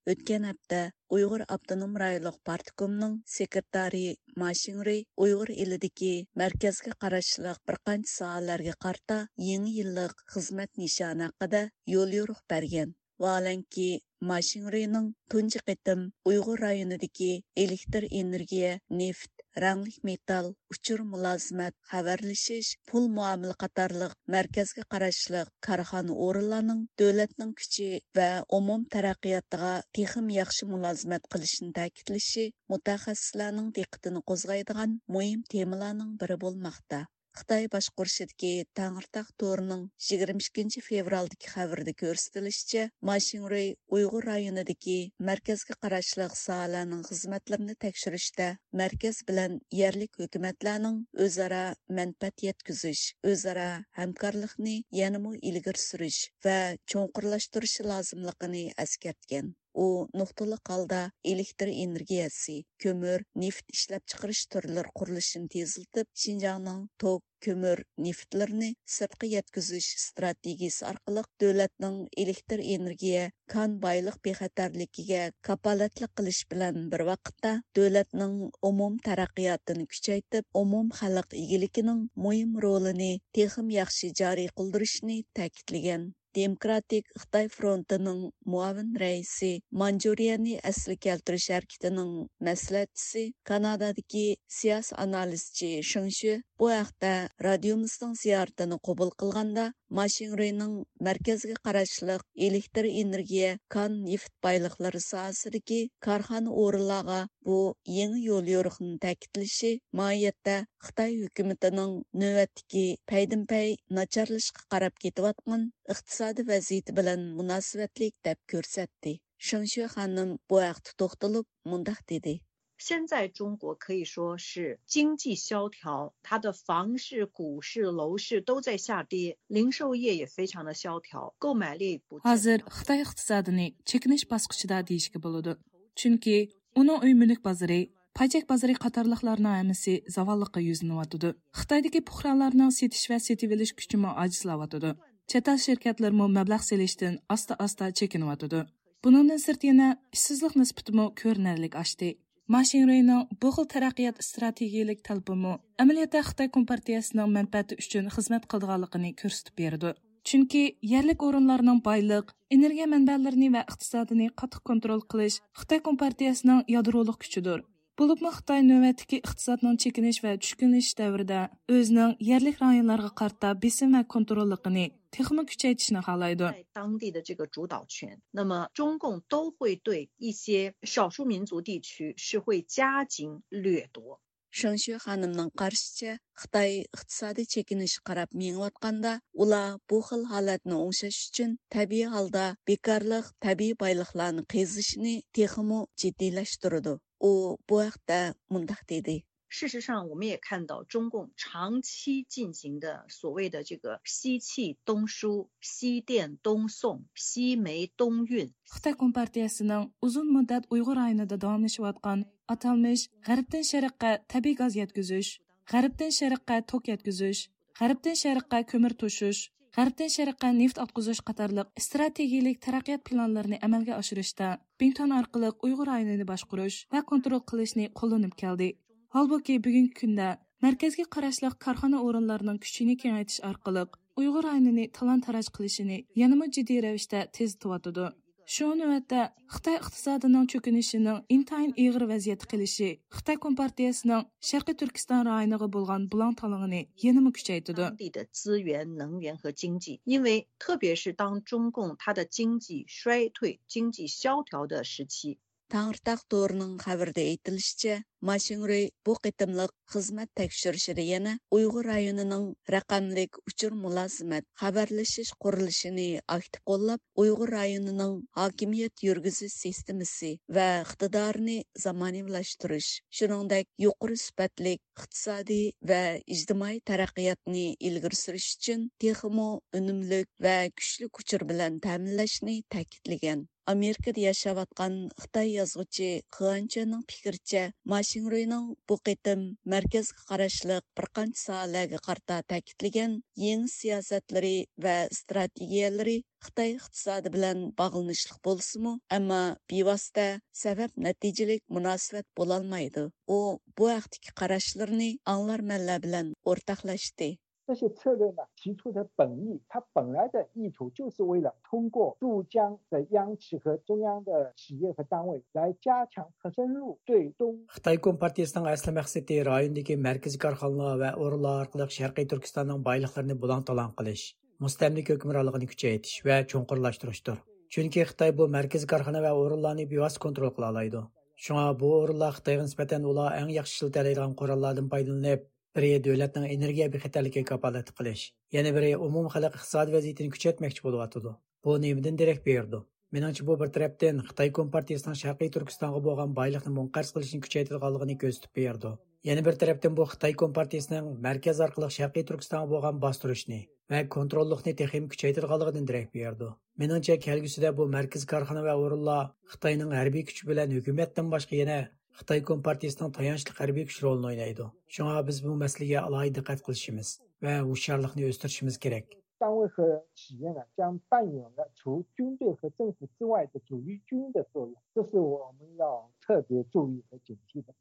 ئۆتكەن ھەپتە ئۇيغۇر ئاپتونوم رايونلۇق پارتكومنىڭ سېكرېتارى ما شىڭرۇي ئۇيغۇر ئېلىدىكى مەركەزگە قاراشلىق بىر قانچە ساھەلەرگە قارىتا يېڭى يىللىق خىزمەت نىشانى ھەققىدە يوليورۇق بەرگەن. ۋاھالەنكى، ما شىڭرۇينىڭ تۇنجى قېتىم ئۇيغۇر رايونىدىكى ئېلېكتر ئېنېرگىيە، نېفىت، رەڭلىك مېتال، ئۇچۇر مۇلازىمەت، خەۋەرلىشىش، پۇل مۇئامىلە قاتارلىق مەركەزگە قاراشلىق كارخانا ئورۇنلارنىڭ دۆلەتنىڭ كۈچى ۋە ئومۇم تەرەققىياتىغا تېخىمۇ ياخشى مۇلازىمەت قىلىشىنى تەكىتلىشى مۇتەخەسسىسلەرنىڭ دىققىتىنى قوزغايدىغان مۇھىم تېمىلارنىڭ بىرى بولماقتا. خىتاي باشقۇرۇشىدىكى تەڭرىتاغ تورىنىڭ يىگىرمە ئىككىنچى فېۋرالدىكى خەۋىرىدە كۆرسىتىلىشىچە، ما شىڭرۇي ئۇيغۇر رايونىدىكى مەركەزگە قاراشلىق ساھەلەرنىڭ خىزمەتلىرىنى تەكشۈرۈشتە مەركەز بىلەن يەرلىك ھۆكۈمەتلەرنىڭ ئۆزئارا مەنپەئەت يەتكۈزۈش، ئۆزئارا ھەمكارلىقنى يەنىمۇ ئىلگىرى سۈرۈش ۋە چوڭقۇرلاشتۇرۇشى لازىملىقىنى ئەسكەرتكەن. ئۇ نۇقتىلىق ھالدا ئېلېكتر ئېنېرگىيەسى، كۆمۈر، نېفىت ئىشلەپچىقىرىش تۈرلىرى قۇرۇلۇشىنى تېزلىتىپ، شىنجاڭنىڭ توك، كۆمۈر، نېفىتلىرىنى سىرتقا يەتكۈزۈش ئىستراتېگىيىسى ئارقىلىق دۆلەتنىڭ ئېلېكتر ئېنېرگىيە، كان بايلىق بىخەتەرلىكىگە كاپالەتلىك قىلىش بىلەن بىر ۋاقىتتا، دۆلەتنىڭ ئومۇم تەرەققىياتىنى كۈچەيتىپ، ئومۇم خەلق ئىگىلىكىنىڭ مۇھىم رولىنى تېخىمۇ ياخشى جارى قىلدۇرۇشنى تەكىتلىگەن. دېموكراتىك خىتاي فرونتىنىڭ مۇئاۋىن رەئىسى، مانجۇرىيەنى ئەسلىگە كەلتۈرۈش ھەرىكىتىنىڭ مەسلىھەتچىسى، كانادادىكى سىياسىي ئانالىزچى شېڭ شۈ بۇ ھەقتە رادىيومىزنىڭ زىيارىتىنى قوبۇل قىلغاندا، ما شىڭرۇينىڭ مەركەزگە قاراشلىق ئېلېكتر ئېنېرگىيە، كان نېفىت بايلىقلىرى ساھەسىدىكى كارخانا ئورۇنلارغا بۇ يېڭى يوليورۇقنى تەكىتلىشى ماھىيەتتە خىتاي ھۆكۈمىتىنىڭ نۆۋەتتىكى پەيدىنپەي ناچارلىشىشقا قاراپ كېتىۋاتقان ئىقتىسادىي ۋەزىيىتى بىلەن مۇناسىۋەتلىك دەپ كۆرسەتتى. شېڭ شۈ خانىم بۇ ھەقتە توختىلىپ مۇنداق دېدى. 现在中国可以说是经济萧条，它的房市、股市、楼市都在下跌，零售业也非常的萧条，购买力不振。 ھازىر خىتاي ئىقتىسادىنى چېكىنىش باسقۇچىدا دېيىشكە بولىدۇ. چۈنكى ئۇنىڭ ئۆي مۈلۈك بازىرى، پايچەك بازىرى قاتارلىقلارنىڭ ھەممىسى زاۋاللىققا يۈزلىنىۋاتىدۇ. خىتايدىكى پۇقرالارنىڭ سېتىش ۋە سېتىۋېلىش كۈچىمۇ ئاجىزلاۋاتىدۇ. چەت ئەل شىركەتلىرىمۇ مەبلەغ سېلىشتىن ئاستا-ئاستا چېكىنىۋاتىدۇ. بۇنىڭدىن سىرت يەنە ئىشسىزلىق نىسبىتىمۇ كۆرۈنەرلىك ئاشتى. ما شىڭرۇينىڭ بۇ خىل تەرەققىيات ئىستراتېگىيەلىك تەلىپىمۇ ئەمەلىيەتتە خىتاي كومپارتىيەسىنىڭ مەنپەئەتى ئۈچۈن خىزمەت قىلىدىغانلىقىنى كۆرسىتىپ بېرىدۇ. چۈنكى يەرلىك ئورۇنلارنىڭ بايلىق، ئېنېرگىيە مەنبەلىرىنى ۋە ئىقتىسادىنى قاتتىق كونترول قىلىش خىتاي كومپارتىيەسىنىڭ يادرولۇق كۈچىدۇر. بولۇپمۇ خىتاي نۆۋەتتىكى ئىقتىسادنىڭ چېكىنىش ۋە چۈشكۈنلىشىش دەۋرىدە ئۆزىنىڭ يەرلىك رايونلارغا قارىتا بېسىم ۋە كونتروللۇقىنى تېخىمۇ كۈچەيتىشنى خالايدۇ. 在当地的这个主导权。那么中共都会对一些少数民族地区是会加紧掠夺。 شېڭشۈ خانىمنىڭ قارىشىچە، خىتاي ئىقتىسادىي چېكىنىشكە قاراپ مېڭىۋاتقاندا، ئۇلار بۇ خىل ھالەتنى ئوڭشاش ئۈچۈن تەبىئىي ھالدا بىكارلىق، تەبىئىي بايلىقلارنى قېزىشنى تېخىمۇ جىددىيلەشتۈرىدۇ. ئۇ بۇ ھەقتە مۇنداق دېدى. 事实上，我们也看到中共长期进行的所谓的这个西气东输、西电东送、西煤东运。 خىتاي كومپارتىيەسىنىڭ ئۇزۇن مۇددەت ئۇيغۇر رايونىدا داۋاملىشىۋاتقان ئاتالمىش غەربتىن شەرققە تەبىئىي گاز يەتكۈزۈش، غەربتىن شەرققە توك يەتكۈزۈش، غەربتىن شەرققە كۆمۈر توشۇش، غەربتىن شەرققە نېفىت ئاققۇزۇش قاتارلىق ئىستراتېگىيىلىك تەرەققىيات پىلانلىرىنى ئەمەلگە ئاشۇرۇشتا بىڭتۈەن ئارقىلىق ئۇيغۇر رايونىنى باشقۇرۇش ۋە كونترول قىلىشنى قوللىنىپ كەلدى. ھالبۇكى، بۈگۈنكى كۈندە مەركەزگە قاراشلىق كارخانا ئورۇنلارنىڭ كۈچىنى كېڭەيتىش ئارقىلىق ئۇيغۇر رايونىنى تالان-تاراج قىلىشىنى يەنىمۇ جىددىي رەۋىشتە تېزلىتىۋاتىدۇ. شۇڭا نۆۋەتتە خىتاي ئىقتىسادىنىڭ چۆكۈنۈشىنىڭ ئىنتايىن ئېغىر ۋەزىيەتتە قېلىشى خىتاي كومپارتىيەسىنىڭ شەرقىي تۈركىستان رايونىغا بولغان بۇلاڭ-تالاڭىنى يەنىمۇ كۈچەيتىدۇ. 当地的资源、能源和经济，因为特别是当中共它的经济衰退、经济萧条的时期， تەڭرىتاغ تورىنىڭ خەۋىرىدە ئېيتىلىشىچە، ما شىڭرۇي بۇ قېتىملىق خىزمەت تەكشۈرۈشىدە يەنە ئۇيغۇر رايونىنىڭ رەقەملىك ئۇچۇر مۇلازىمەت، خەۋەرلىشىش قۇرۇلۇشىنى ئاكتىپ قوللاپ، ئۇيغۇر رايونىنىڭ ھاكىمىيەت يۈرگۈزۈش سىستېمىسى ۋە ئىقتىدارىنى زامانىۋىلاشتۇرۇش، شۇنىڭدەك يۇقىرى سۈپەتلىك ئىقتىسادىي ۋە ئىجتىمائىي تەرەققىياتنى ئىلگىرى سۈرۈش ئۈچۈن تېخىمۇ ئۈنۈملۈك ۋە كۈچلۈك ئۇچۇر بىلەن تەمىنلەشنى تەكىتلىگەن. ئامېرىكىدا ياشاۋاتقان خىتاي يازغۇچى خېئان چۈەننىڭ پىكرىچە، ما شىڭرۇينىڭ بۇ قېتىم مەركەزگە قاراشلىق بىر قانچە ساھەلەرگە قارىتا تەكىتلىگەن يېڭى سىياسەتلىرى ۋە ئىستراتېگىيەلىرى خىتاي ئىقتىسادى بىلەن باغلىنىشلىق بولسىمۇ، ئەمما بىۋاسىتە سەۋەب نەتىجىلىك مۇناسىۋەت بولالمايدۇ. ئۇ بۇ ھەقتىكى قاراشلىرىنى ئاڭلارمەنلەر بىلەن ئورتاقلاشتى. 这些策略呢提出的本意，它本来的意图就是为了通过驻疆的央企和中央的企业和单位来加强和深入对东 خىتاي كومپارتىيىسىنىڭ ئەسلى مەقسىتى رايوندىكى مەركىزىي كارخانىلار ۋە ئورۇنلار ئارقىلىق شەرقىي تۈركىستاننىڭ بايلىقلىرىنى بۇلاڭ-تالاڭ قىلىش، مۇستەملىكە ھۆكۈمرانلىقىنى كۈچەيتىش ۋە چوڭقۇرلاشتۇرۇشتۇر. چۈنكى خىتاي بۇ مەركىزىي كارخانا ۋە ئورۇنلارنى بىۋاسىتە كونترول قىلالايدۇ. شۇڭا بۇ ئورۇنلار خىتايغا نىسبەتەن ئۇلار ئەڭ ياخشى ئىشلىتەلەيدىغان قوراللاردىن پايدىلىنىپ، بىرى دۆلەتنىڭ ئېنېرگىيە بىخەتەرلىكىگە كاپالەتلىك قىلىش، يەنە بىرى ئومۇمخەلق ئىقتىسادىي ۋەزىيىتىنى كۈچەيتمەكچى بولۇۋاتىدۇ. بۇ نېمىدىن دېرەك بېرىدۇ؟ مېنىڭچە، بۇ بىر تەرەپتىن خىتاي كومپارتىيىسىنىڭ شەرقىي تۈركىستانغا بولغان بايلىقنى مۇنقەرز قىلىشنى كۈچەيتىدىغانلىقىنى كۆرسىتىپ بېرىدۇ. يەنە بىر تەرەپتىن بۇ خىتاي كومپارتىيىسىنىڭ مەركەز ئارقىلىق شەرقىي تۈركىستانغا بولغان باستۇرۇشنى ۋە كونتروللۇقنى تېخىمۇ كۈچەيتىدىغانلىقىدىن دېرەك بېرىدۇ. مېنىڭچە، كەلگۈسىدە بۇ مەركىزىي كارخانا ۋە ئورۇنلار خىتاينىڭ ھەربىي كۈچى بىلەن ھۆكۈمەتتىن باشقا يەنە خىتاي كومپارتىيىسىنىڭ تايانچلىق ھەربىي كۈچ رولىنى ئوينايدۇ. شۇڭا بىز بۇ مەسىلىگە ئالاھىدە دىققەت قىلىشىمىز ۋە ھوشيارلىقنى ئۆستۈرۈشىمىز كېرەك. 单位和企业呢，将扮演了除军队和政府之外的主力军的作用，这是我们要特别注意和警惕的。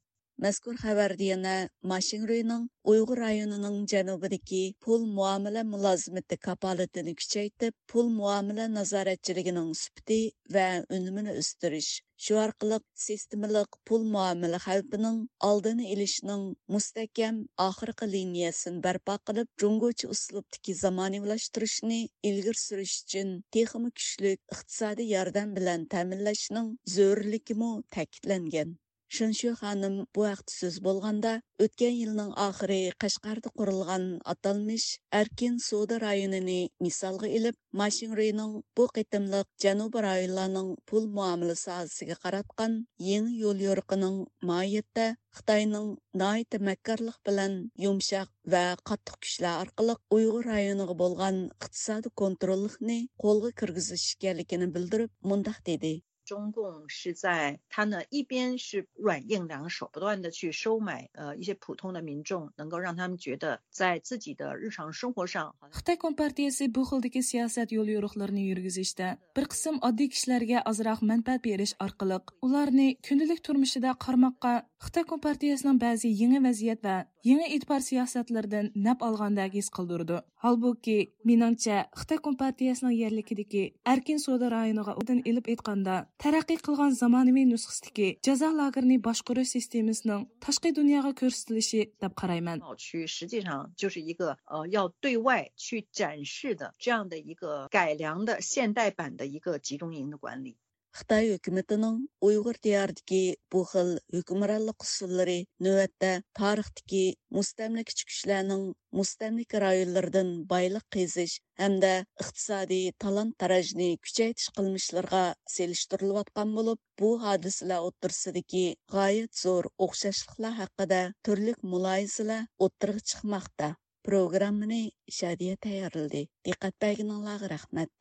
مەزكۇر خەۋەردە يەنە ما شىڭرۇينىڭ ئۇيغۇر رايونىنىڭ جەنۇبىدىكى پۇل مۇئامىلە مۇلازىمىتى كاپالىتىنى كۈچەيتىپ، پۇل مۇئامىلە نازارەتچىلىكىنىڭ سۈپىتى ۋە ئۈنۈمىنى ئۆستۈرۈش، شۇ ئارقىلىق سىستېمىلىق پۇل مۇئامىلە خەۋپىنىڭ ئالدىنى ئېلىشنىڭ مۇستەھكەم ئاخىرقى لىنىيەسىنى بەرپا قىلىپ، جۇڭگوچە ئۇسلۇبتىكى زامانىۋىلاشتۇرۇشنى ئىلگىرى سۈرۈش ئۈچۈن تېخىمۇ كۈچلۈك ئىقتىسادىي ياردەم بىلەن تەمىنلەشنىڭ زۆرۈرلۈكىمۇ تەكىتلەنگەن. شېنشۈ خانىم بۇ ھەقتە سۆز بولغاندا، ئۆتكەن يىلنىڭ ئاخىرى قەشقەردە قۇرۇلغان ئاتالمىش ئەركىن سودا رايونىنى مىسالغا ئېلىپ، ما شىڭرۇينىڭ بۇ قېتىملىق جەنۇبىي رايونلارنىڭ پۇل مۇئامىلە ساھەسىگە قاراتقان يېڭى يوليورۇقىنىڭ ماھىيەتتە خىتاينىڭ ناھايىتى مەككارلىق بىلەن يۇمشاق ۋە قاتتىق كۈچلەر ئارقىلىق ئۇيغۇر رايونىغا بولغان ئىقتىسادىي كونتروللۇقنى قولغا كىرگۈزۈش ئىكەنلىكىنى بىلدۈرۈپ، مۇنداق دېدى. 中共是在，它呢，一边是软硬两手，不断地去收买，呃，一些普通的民众，能够让他们觉得在自己的日常生活上，好像 خىتاي كومپارتىيەسى بۇ خىلدىكى سىياسەت يوليورۇقلىرىنى يۈرگۈزۈشتە بىر قىسىم ئاددىي كىشىلەرگە ئازراق مەنپەئەت بېرىش ئارقىلىق، ئۇلارنى كۈندىلىك تۇرمۇشىدا قارىماققا خىتاي كومپارتىيەسىنىڭ بەزى يېڭى ۋەزىيەت ۋە يېڭى ئېتىبار سىياسەتلىرىدىن نەپ ئالغاندەك ھېس قىلدۇرىدۇ. ھالبۇكى، مېنىڭچە، خىتاي كومپارتىيەسىنىڭ يەرلىكىدىكى ئەركىن سودا رايونىغا ئوبدان ئېلىپ ئېيتقاندا، تەرەققىي قىلغان زامانىۋى نۇسخىسىدىكى جازا لاگېرىنى باشقۇرۇش سىستېمىسىنىڭ تاشقى دۇنياغا كۆرسىتىلىشى دەپ قارايمەن. 区实际上就是一个，呃，要对外去展示的这样的一个改良的现代版的一个集中营的管理。 خىتاي ھۆكۈمىتىنىڭ ئۇيغۇر دىيارىدىكى بۇ خىل ھۆكۈمرانلىق ئۇسۇللىرى نۆۋەتتە تارىختىكى مۇستەملىكىچى كۈچلەرنىڭ مۇستەملىكە رايونلىرىدىن بايلىق قېزىش ھەمدە ئىقتىسادىي تالان-تاراجنى كۈچەيتىش قىلمىشلىرىغا سېلىشتۇرۇلۇۋاتقان بولۇپ، بۇ ھادىسىلەر ئوتتۇرىسىدىكى غايەت زور ئوخشاشلىقلار ھەققىدە تۈرلۈك مۇلاھىزىلەر ئوتتۇرىغا چىقماقتا. پروگراممىنى شادىيە تەييارلىدى. دىققەت بەرگىنىڭلارغا رەھمەت.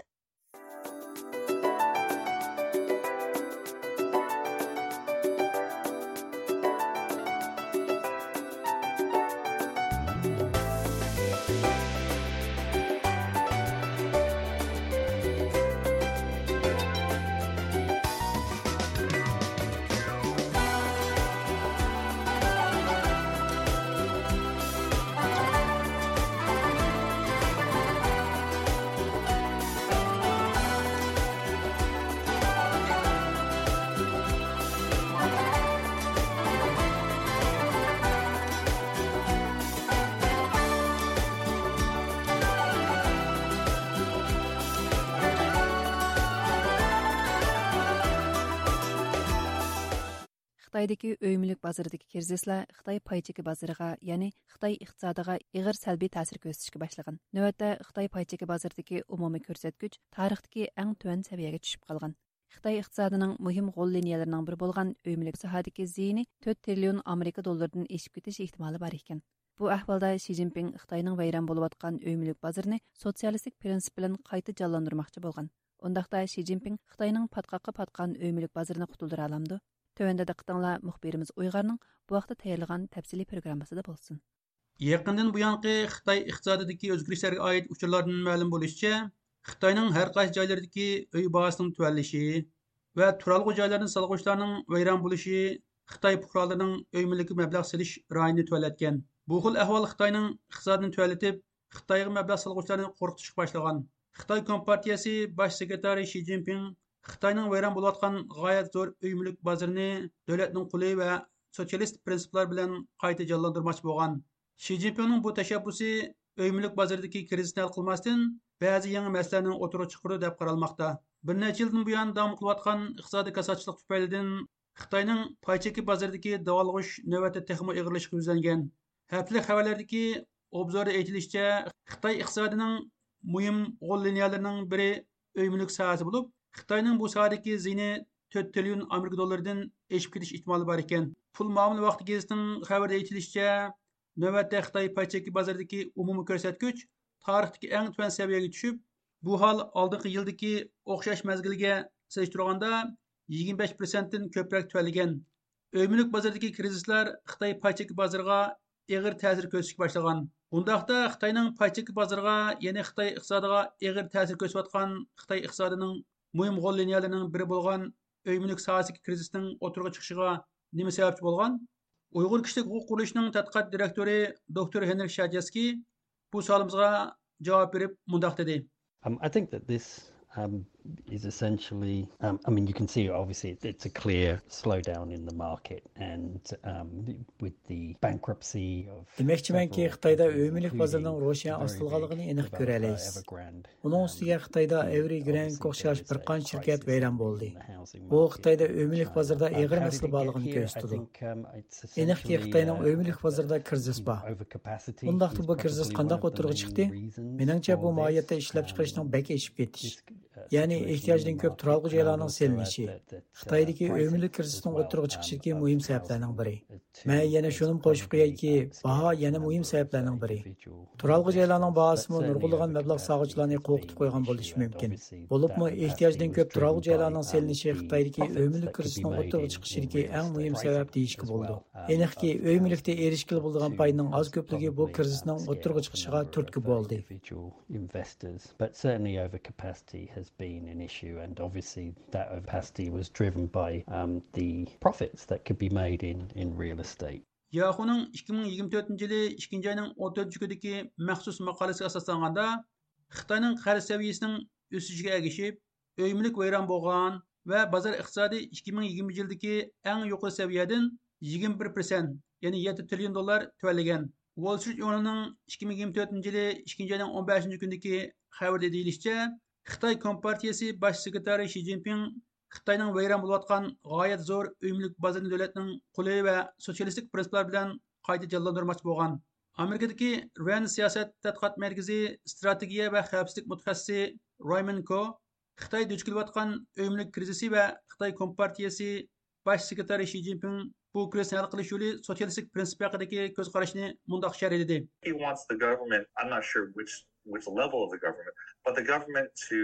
خىتايدىكى ئۆي مۈلۈك بازىرىدىكى كىرىزىسلار خىتاي پاي چېكى بازىرىغا، يەنى خىتاي ئىقتىسادىغا ئېغىر سەلبىي تەسىر كۆرسىتىشكە باشلىغان. نۆۋەتتە خىتاي پاي چېكى بازىرىدىكى ئومۇمىي كۆرسەتكۈچ تارىختىكى ئەڭ تۆۋەن سەۋىيەگە چۈشۈپ قالغان. خىتاي ئىقتىسادىنىڭ مۇھىم غول لىنىيەلىرىنىڭ بىرى بولغان ئۆي مۈلۈك ساھەدىكى زىيىنى تۆت تىرىليون ئامېرىكا دوللىرىدىن ئېشىپ كېتىش ئېھتىمالى بار ئىكەن. بۇ ئەھۋالدا شى جىنپىڭ خىتاينىڭ ۋەيران بولۇۋاتقان ئۆي مۈلۈك بازىرىنى سوتسىيالىستىك پىرىنسىپ بىلەن قايتا جانلاندۇرماقچى بولغان. ئۇنداقتا شى جىنپىڭ خىتاينىڭ پاتقاققا پاتقان ئۆي مۈلۈك بازىرىنى قۇتۇلدۇرالامدۇ؟ تۆۋەندە دىققىتىڭلار مۇخبىرىمىز ئۇيغارنىڭ بۇ ھەقتە تەييارلىغان تەپسىلىي پروگراممىسىدا بولسۇن. يېقىندىن بۇيانقى خىتاي ئىقتىسادىدىكى ئۆزگىرىشلەرگە ئائىت ئۇچۇرلاردىن مەلۇم بولۇشىچە، خىتاينىڭ ھەر قايسى جايلىرىدىكى ئۆي باھاسىنىڭ تۆۋەنلىشى ۋە تۇرالغۇ جايلارنى سالغۇچىلارنىڭ ۋەيران بولۇشى خىتاي پۇقرالىرىنىڭ ئۆي مۈلكىگە مەبلەغ سېلىش رايىنى تۆۋەنلەتكەن. بۇ خىل ئەھۋال خىتاينىڭ ئىقتىسادىنى تۆۋەنلىتىپ، خىتايغا مەبلەغ سالغۇچىلارنى قورقۇتۇشقا باشلىغان. خىتاي كومپارتىيەسى باش سېكرېتارى شى جىنپىڭ خىتاينىڭ ۋەيران بولۇۋاتقان غايەت زور ئۆي مۈلۈك بازىرىنى دۆلەتنىڭ قولى ۋە سوتسىيالىست پىرىنسىپلار بىلەن قايتا جانلاندۇرماقچى بولغان. شى جىنپىڭنىڭ بۇ تەشەببۇسى ئۆي مۈلۈك بازىرىدىكى كىرىزىسنى ھەل قىلماستىن، بەزى يېڭى مەسىلىلەرنى ئوتتۇرىغا چىقىرىدۇ دەپ قارالماقتا. بىر نەچچە يىلدىن بۇيان داۋام قىلىۋاتقان ئىقتىسادىي كاساتچىلىق تۈپەيلىدىن خىتاينىڭ پاي چېكى بازىرىدىكى داۋالغۇش نۆۋەتتە تېخىمۇ ئېغىرلىشىشقا يۈزلەنگەن. ھەپتىلىك خەۋەرلەردىكى ئوبزوردا ئېيتىلىشىچە، خىتاي ئىقتىسادىنىڭ مۇھىم غول لىنىيەلىرىنىڭ بىرى ئۆي مۈلۈك ساھەسى بولۇپ، خىتاينىڭ بۇ ساھەدىكى زىيىنى تۆت تىرىليون ئامېرىكا دوللىرىدىن ئېشىپ كېتىش ئېھتىمالى بار ئىكەن. پۇل مۇئامىلە ۋاقتى گېزىتىنىڭ خەۋىرىدە ئېيتىلىشىچە، نۆۋەتتە خىتاي پاي چېكى بازىرىدىكى ئومۇمىي كۆرسەتكۈچ تارىختىكى ئەڭ تۆۋەن سەۋىيەگە چۈشۈپ، بۇ ھال ئالدىنقى يىلدىكى ئوخشاش مەزگىلگە سېلىشتۇرغاندا يىگىرمە بەش پىرسەنتتىن كۆپرەك تۆۋەنلىگەن. ئۆي مۈلۈك بازىرىدىكى كىرىزىسلار خىتاي پاي چېكى بازىرىغا ئېغىر تەسىر كۆرسىتىشكە باشلىغان. بۇنداقتا خىتاينىڭ پاي چېكى بازىرىغا، يەنى خىتاي ئىقتىسادىغا ئېغىر تەسىر كۆرسىتىۋاتقان خىتاي ئىقتىسادىنىڭ مۇھىم غول لىنىيەلىرىنىڭ بىرى بولغان ئۆي مۈلۈك ساھەسىدىكى كىرىزىسنىڭ ئوتتۇرىغا چىقىشىغا نېمە سەۋەبچى بولغان؟ ئۇيغۇر كىشىلىك ھوقۇق قۇرۇلۇشىنىڭ تەتقىقات دىرېكتورى دوكتور ھېنرىك شاجېسكىي بۇ سوئالىمىزغا جاۋاب بېرىپ مۇنداق دېدى. Um, I think that this, um, is essentially, um, I mean, you can see obviously it's a clear slowdown in the market, and, um, with the bankruptcy of دېمەكچىمەنكى، خىتايدا ئۆي مۈلۈك بازىرىنىڭ روشەن ئاستىلىغانلىقىنى ئېنىق كۆرەلەيسىز. ئۇنىڭ ئۈستىگە خىتايدا ئەۋرى گرەنك ئوخشاش بىر قانچە شىركەت ۋەيران بولدى. بۇ خىتايدا ئۆي مۈلۈك بازىرىدا ئېغىر مەسىلە بارلىقىنى كۆرسىتىدۇ. ئېنىقكى، خىتاينىڭ ئۆي مۈلۈك بازىرىدا كىرىزىس بار. ئۇنداقتا بۇ كىرىزىس قانداق ئوتتۇرىغا چىقتى؟ مېنىڭچە، بۇ ماھىيەتتە ئىشلەپچىقىرىشنىڭ بەك ئېشىپ كېتىش. يەنى ئېھتىياجدىن كۆپ تۇرالغۇ جايلارنىڭ سېلىنىشى خىتايدىكى ئۆي مۈلۈك كىرىزىسىنىڭ ئوتتۇرىغا چىقىشىدىكى مۇھىم سەۋەبلەرنىڭ بىرى. مەن يەنە شۇنىمۇ قوشۇپ قويايكى، باھا يەنە مۇھىم سەۋەبلەرنىڭ بىرى. تۇرالغۇ جايلارنىڭ باھاسىمۇ نۇرغۇنلىغان مەبلەغ سالغۇچىلارنى قورقۇتۇپ قويغان بولۇشى مۇمكىن. بولۇپمۇ ئېھتىياجدىن كۆپ تۇرالغۇ جايلارنىڭ سېلىنىشى خىتايدىكى ئۆي مۈلۈك كىرىزىسىنىڭ ئوتتۇرىغا چىقىشىدىكى ئەڭ مۇھىم سەۋەب دېيىشكە بولىدۇ. ئېنىقكى، ئۆي مۈلۈكتە ئېرىشكىلى بولىدىغان پايدىنىڭ ئاز كۆپلۈكى بۇ كىرىزىسنىڭ ئوتتۇرىغا چىقىشىغا تۈرتكە بولدى. Investors, but certainly overcapacity has been an issue, and obviously that overcapacity was driven by, um, the profits that could be made in, in real estate. ياخۇنىڭ ئىككى مىڭ يىگىرمە تۆتىنچى يىلى ئىككىنچى ئاينىڭ ئون تۆتىنچى كۈنىدىكى مەخسۇس ماقالىسىگە ئاساسلانغاندا، خىتاينىڭ قەرز سەۋىيەسىنىڭ ئۆسۈشىگە ئەگىشىپ، ئۆي مۈلۈك ۋەيران بولغان ۋە بازار ئىقتىسادى ئىككى مىڭ يىگىرمىنچى يىلدىكى ئەڭ يۇقىرى سەۋىيەدىن يىگىرمە بىر پىرسەنت، يەنى يەتتە تىرىليون دوللار تۆۋەنلىگەن. ۋول سترىت ژۇرنىلىنىڭ ئىككى مىڭ يىگىرمە تۆتىنچى يىلى ئىككىنچى ئاينىڭ ئون بەشىنچى كۈنىدىكى خەۋىرىدە دېيىلىشىچە، خىتاي كومپارتىيىسى باش سېكرېتارى شى جىنپىڭ خىتاينىڭ ۋەيران بولۇۋاتقان غايەت زور ئۆي مۈلۈك بازىرىنى دۆلەتنىڭ قولى ۋە سوتسىيالىستىك پىرىنسىپلار بىلەن قايتا جانلاندۇرماقچى بولغان. ئامېرىكىدىكى رەند سىياسەت تەتقىقات مەركىزى ئىستراتېگىيە ۋە خەۋپسىزلىك مۇتەخەسسىسى رايمون كو خىتاي دۇچ كېلىۋاتقان ئۆي مۈلۈك كىرىزىسى ۋە خىتاي كومپارتىيىسى باش سېكرېتارى شى جىنپىڭ بۇ كىرىزىسنى ھەل قىلىش يولى سوتسىيالىستىك پىرىنسىپ ھەققىدىكى كۆز قارىشىنى مۇنداق شەرھلىدى. He wants the government, I'm not sure which, which level of the government, but the government to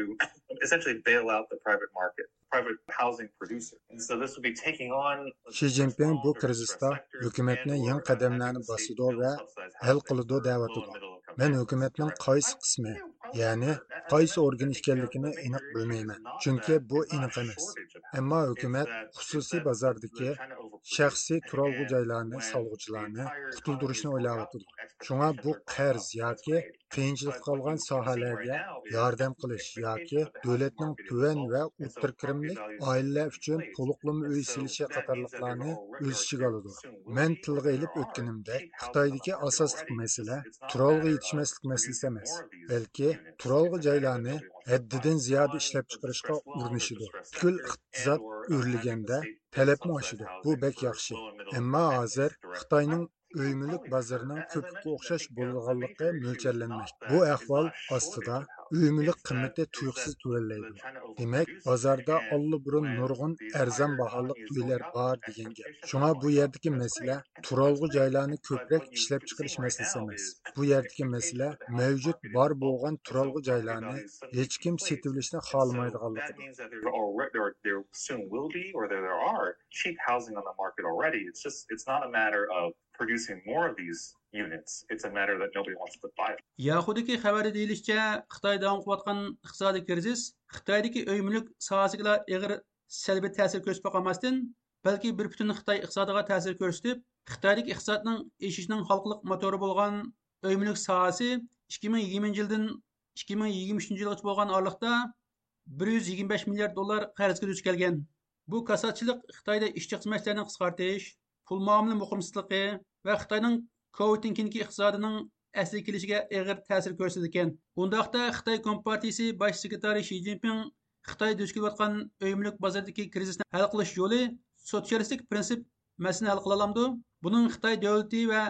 essentially bail out the private market, private housing producer. And so this would be taking on شى جىنپىڭ بۇ كىرىزىستا ھۆكۈمەتنى يېڭى قەدەملەرنى باسىدۇ ۋە ھەل قىلىدۇ دەۋاتىدۇ. مەن ھۆكۈمەتنىڭ قايسى قىسمى، يەنى قايسى ئورگىنى ئىكەنلىكىنى ئېنىق بىلمەيمەن، چۈنكى بۇ ئېنىق ئەمەس. ئەمما ھۆكۈمەت خۇسۇسىي بازاردىكى شەخسىي تۇرالغۇ جايلارنى سالغۇچىلارنى قۇتۇلدۇرۇشنى ئويلاۋاتىدۇ. شۇڭا بۇ قەرز ياكى قىيىنچىلىقتا قالغان ساھەلەرگە ياردەم قىلىش ياكى دۆلەتنىڭ تۆۋەن ۋە ئوتتۇرا كىرىملىك ئائىلىلەر ئۈچۈن تولۇقلىما ئۆي سېلىشى قاتارلىقلارنى ئۆز ئىچىگە ئالىدۇ. مەن تىلغا ئېلىپ ئۆتكىنىمدەك، خىتايدىكى ئاساسلىق مەسىلە تۇرالغۇ يېتىشمەسلىك مەسىلىسى ئەمەس، بەلكى تۇرالغۇ جايلارنى ھەددىدىن زىيادە ئىشلەپچىقىرىشقا ئۇرۇنۇشىدۇ. پۈتكۈل ئىقتىساد ئۆرلىگەندە تەلەپمۇ ئاشىدۇ. بۇ بەك ياخشى. ئەمما ھازىر خىتاينىڭ ئۆي مۈلۈك بازىرىنىڭ كۆپۈككە ئوخشاش بولىدىغانلىقى مۆلچەرلەنمەكتە. بۇ ئەھۋال ئاستىدا ئۆي مۈلۈك قىممىتى تۇيۇقسىز تۆۋەنلەيدۇ. دېمەك، بازاردا ئاللىبۇرۇن نۇرغۇن ئەرزان باھالىق ئۆيلەر بار دېگەن گەپ. شۇڭا بۇ يەردىكى مەسىلە تۇرالغۇ جايلارنى كۆپرەك ئىشلەپچىقىرىش مەسىلىسى ئەمەس. بۇ يەردىكى مەسىلە مەۋجۇت بار بولغان تۇرالغۇ جايلارنى ھېچكىم سېتىۋېلىشنى خالىمايدىغانلىقىدۇر. There soon will be, or there, there are cheap housing on the market already. It's just, it's not a matter of producing more of these units. It's a matter that nobody wants to buy. ياخۇدىكى خەۋەردە دېيىلىشىچە، خىتاي داۋام قىلىۋاتقان ئىقتىسادىي كىرىزىس خىتايدىكى ئۆي مۈلۈك ساھەسىگىلا ئېغىر سەلبىي تەسىر كۆرسىتىپ قالماستىن، بەلكى بىر پۈتۈن خىتاي ئىقتىسادىغا تەسىر كۆرسىتىپ، خىتايدىكى ئىقتىسادنىڭ ئېشىشىنىڭ ھالقىلىق موتورى بولغان ئۆي مۈلۈك ساھەسى ئىككى مىڭ يىگىرمىنچى يىلدىن ئىككى مىڭ يىگىرمە ئۈچىنچى يىلغىچە بولغان ئارىلىقتا بىر يۈز يىگىرمە بەش مىليارد دوللار قەرزگە دۇچ كەلگەن. بۇ كاساتچىلىق خىتايدا ئىشچى خىزمەتچىلەرنى قىسقارتىش، پۇل مۇئامىلە مۇقىمسىزلىقى ۋە خىتاينىڭ كوۋىدتىن كېيىنكى ئىقتىسادىنىڭ ئەسلىگە كېلىشىگە ئېغىر تەسىر كۆرسىتىدىكەن. ئۇنداقتا خىتاي كومپارتىيىسى باش سېكرېتارى شى جىنپىڭ خىتاي دۇچ كېلىۋاتقان ئۆي مۈلۈك بازىرىدىكى كىرىزىسنى ھەل قىلىش يولى سوتسىيالىستىك پىرىنسىپ مەسىلىنى ھەل قىلالامدۇ؟ بۇنىڭ خىتاي دۆلىتى ۋە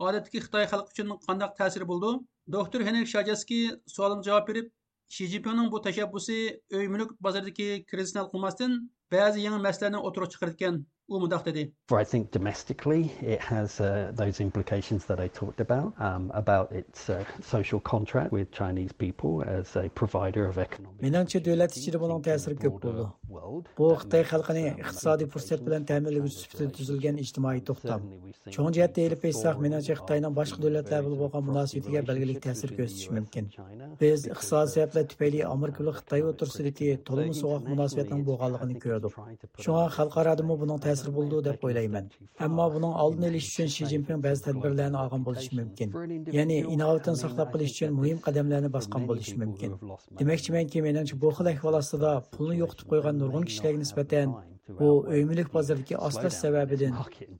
ئادەتتىكى خىتاي خەلقى ئۈچۈن قانداق تەسىرى بولىدۇ؟ دوكتور ھېنرىك شاجېسكىي سوئالىمغا جاۋاب بېرىپ، شى جىنپىڭنىڭ بۇ تەشەببۇسى ئۆي مۈلۈك بازىرىدىكى كىرىزىسنى ھەل قىلماستىن، بەزى يېڭى مەسىلىلەرنى ئوتتۇرىغا چىقىرىدىكەن. ئۇ مۇنداق دېدى. I think domestically it has, uh, those implications that I talked about, um, about its, uh, social contract with Chinese people as a provider of economic مېنىڭچە، دۆلەت ئىچىدە بۇنىڭ تەسىرى كۆپ بولىدۇ. بۇ خىتاي خەلقىنى ئىقتىسادىي پۇرسەت بىلەن تەمىنلىگۈچى سۈپىتىدە تۈزۈلگەن ئىجتىمائىي توختام. چوڭ جەھەتتە ئېلىپ ئېيتساق، مېنىڭچە، خىتاينىڭ باشقا دۆلەتلەر بىلەن بولغان مۇناسىۋىتىگە بەلگىلىك تەسىر كۆرسىتىشى مۇمكىن. بىز ئىقتىسادىي سەۋەبلەر تۈپەيلى ئامېرىكا بىلەن خىتاي ئوتتۇرىسىدىكى تولىمۇ سوغۇق مۇناسىۋەتنىڭ بولغانلىقىنى كۆردۇق. شۇڭا خەلقئارادىمۇ بۇنىڭ تەسىرى بولىدۇ دەپ ئويلايمەن. ئەمما بۇنىڭ ئالدىنى ئېلىش ئۈچۈن شى جىنپىڭ بەزى تەدبىرلەرنى ئالغان بولۇشى مۇمكىن. يەنى ئىناۋىتىنى ساقلاپ قېلىش ئۈچۈن مۇھىم قەدەملەرنى باسقان بولۇشى مۇمكىن. دېمەكچىمەنكى، مېنىڭچە، بۇ خىل ئەھۋال ئاستىدا پۇلنى يوقىتىپ قويغان نۇرغۇن كىشىلەرگە نىسبەتەن بۇ ئۆي مۈلۈك بازىرىدىكى ئاستاش سەۋەبىدىن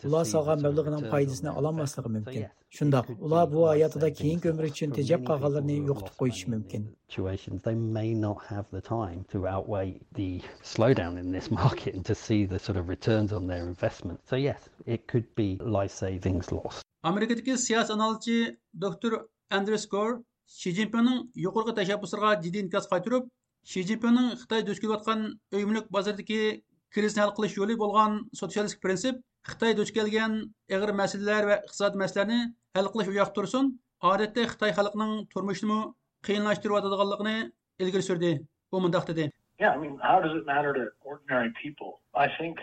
ئۇلار سالغان مەبلىغىنىڭ پايدىسىنى ئالالماسلىقى مۇمكىن. شۇنداق، ئۇلار بۇ ھاياتىدا كېيىنكى ئۆمرى ئۈچۈن تېجەپ قالغانلىرىنى يوقىتىپ قويۇشى مۇمكىن. Situations, they may not have the time to outweigh the slowdown in this market and to see the sort of returns on their investment. So yes, it could be life savings lost. ئامېرىكىدىكى سىياسىي ئانالىزچى دوكتور ئەندرېس گور شى جىنپىڭنىڭ يۇقىرىقى تەشەببۇسلىرىغا جىددىي ئىنكاس قايتۇرۇپ، شى جىنپىڭنىڭ خىتاي دۇچ كېلىۋاتقان ئۆي مۈلۈك بازىرىدىكى كىرىزىسنى ھەل قىلىش يولى بولغان سوتسىيالىستىك پىرىنسىپ خىتاي دۇچ كەلگەن ئېغىر مەسىلىلەر ۋە ئىقتىسادىي مەسىلىلەرنى ھەل قىلىش ئۇياقتا تۇرسۇن، ئادەتتە خىتاي خەلقىنىڭ تۇرمۇشىنىمۇ قىيىنلاشتۇرۇۋاتىدىغانلىقىنى ئىلگىرى سۈردى. ئۇ مۇنداق دېدى. Yeah, I mean, how does it matter to ordinary people? I think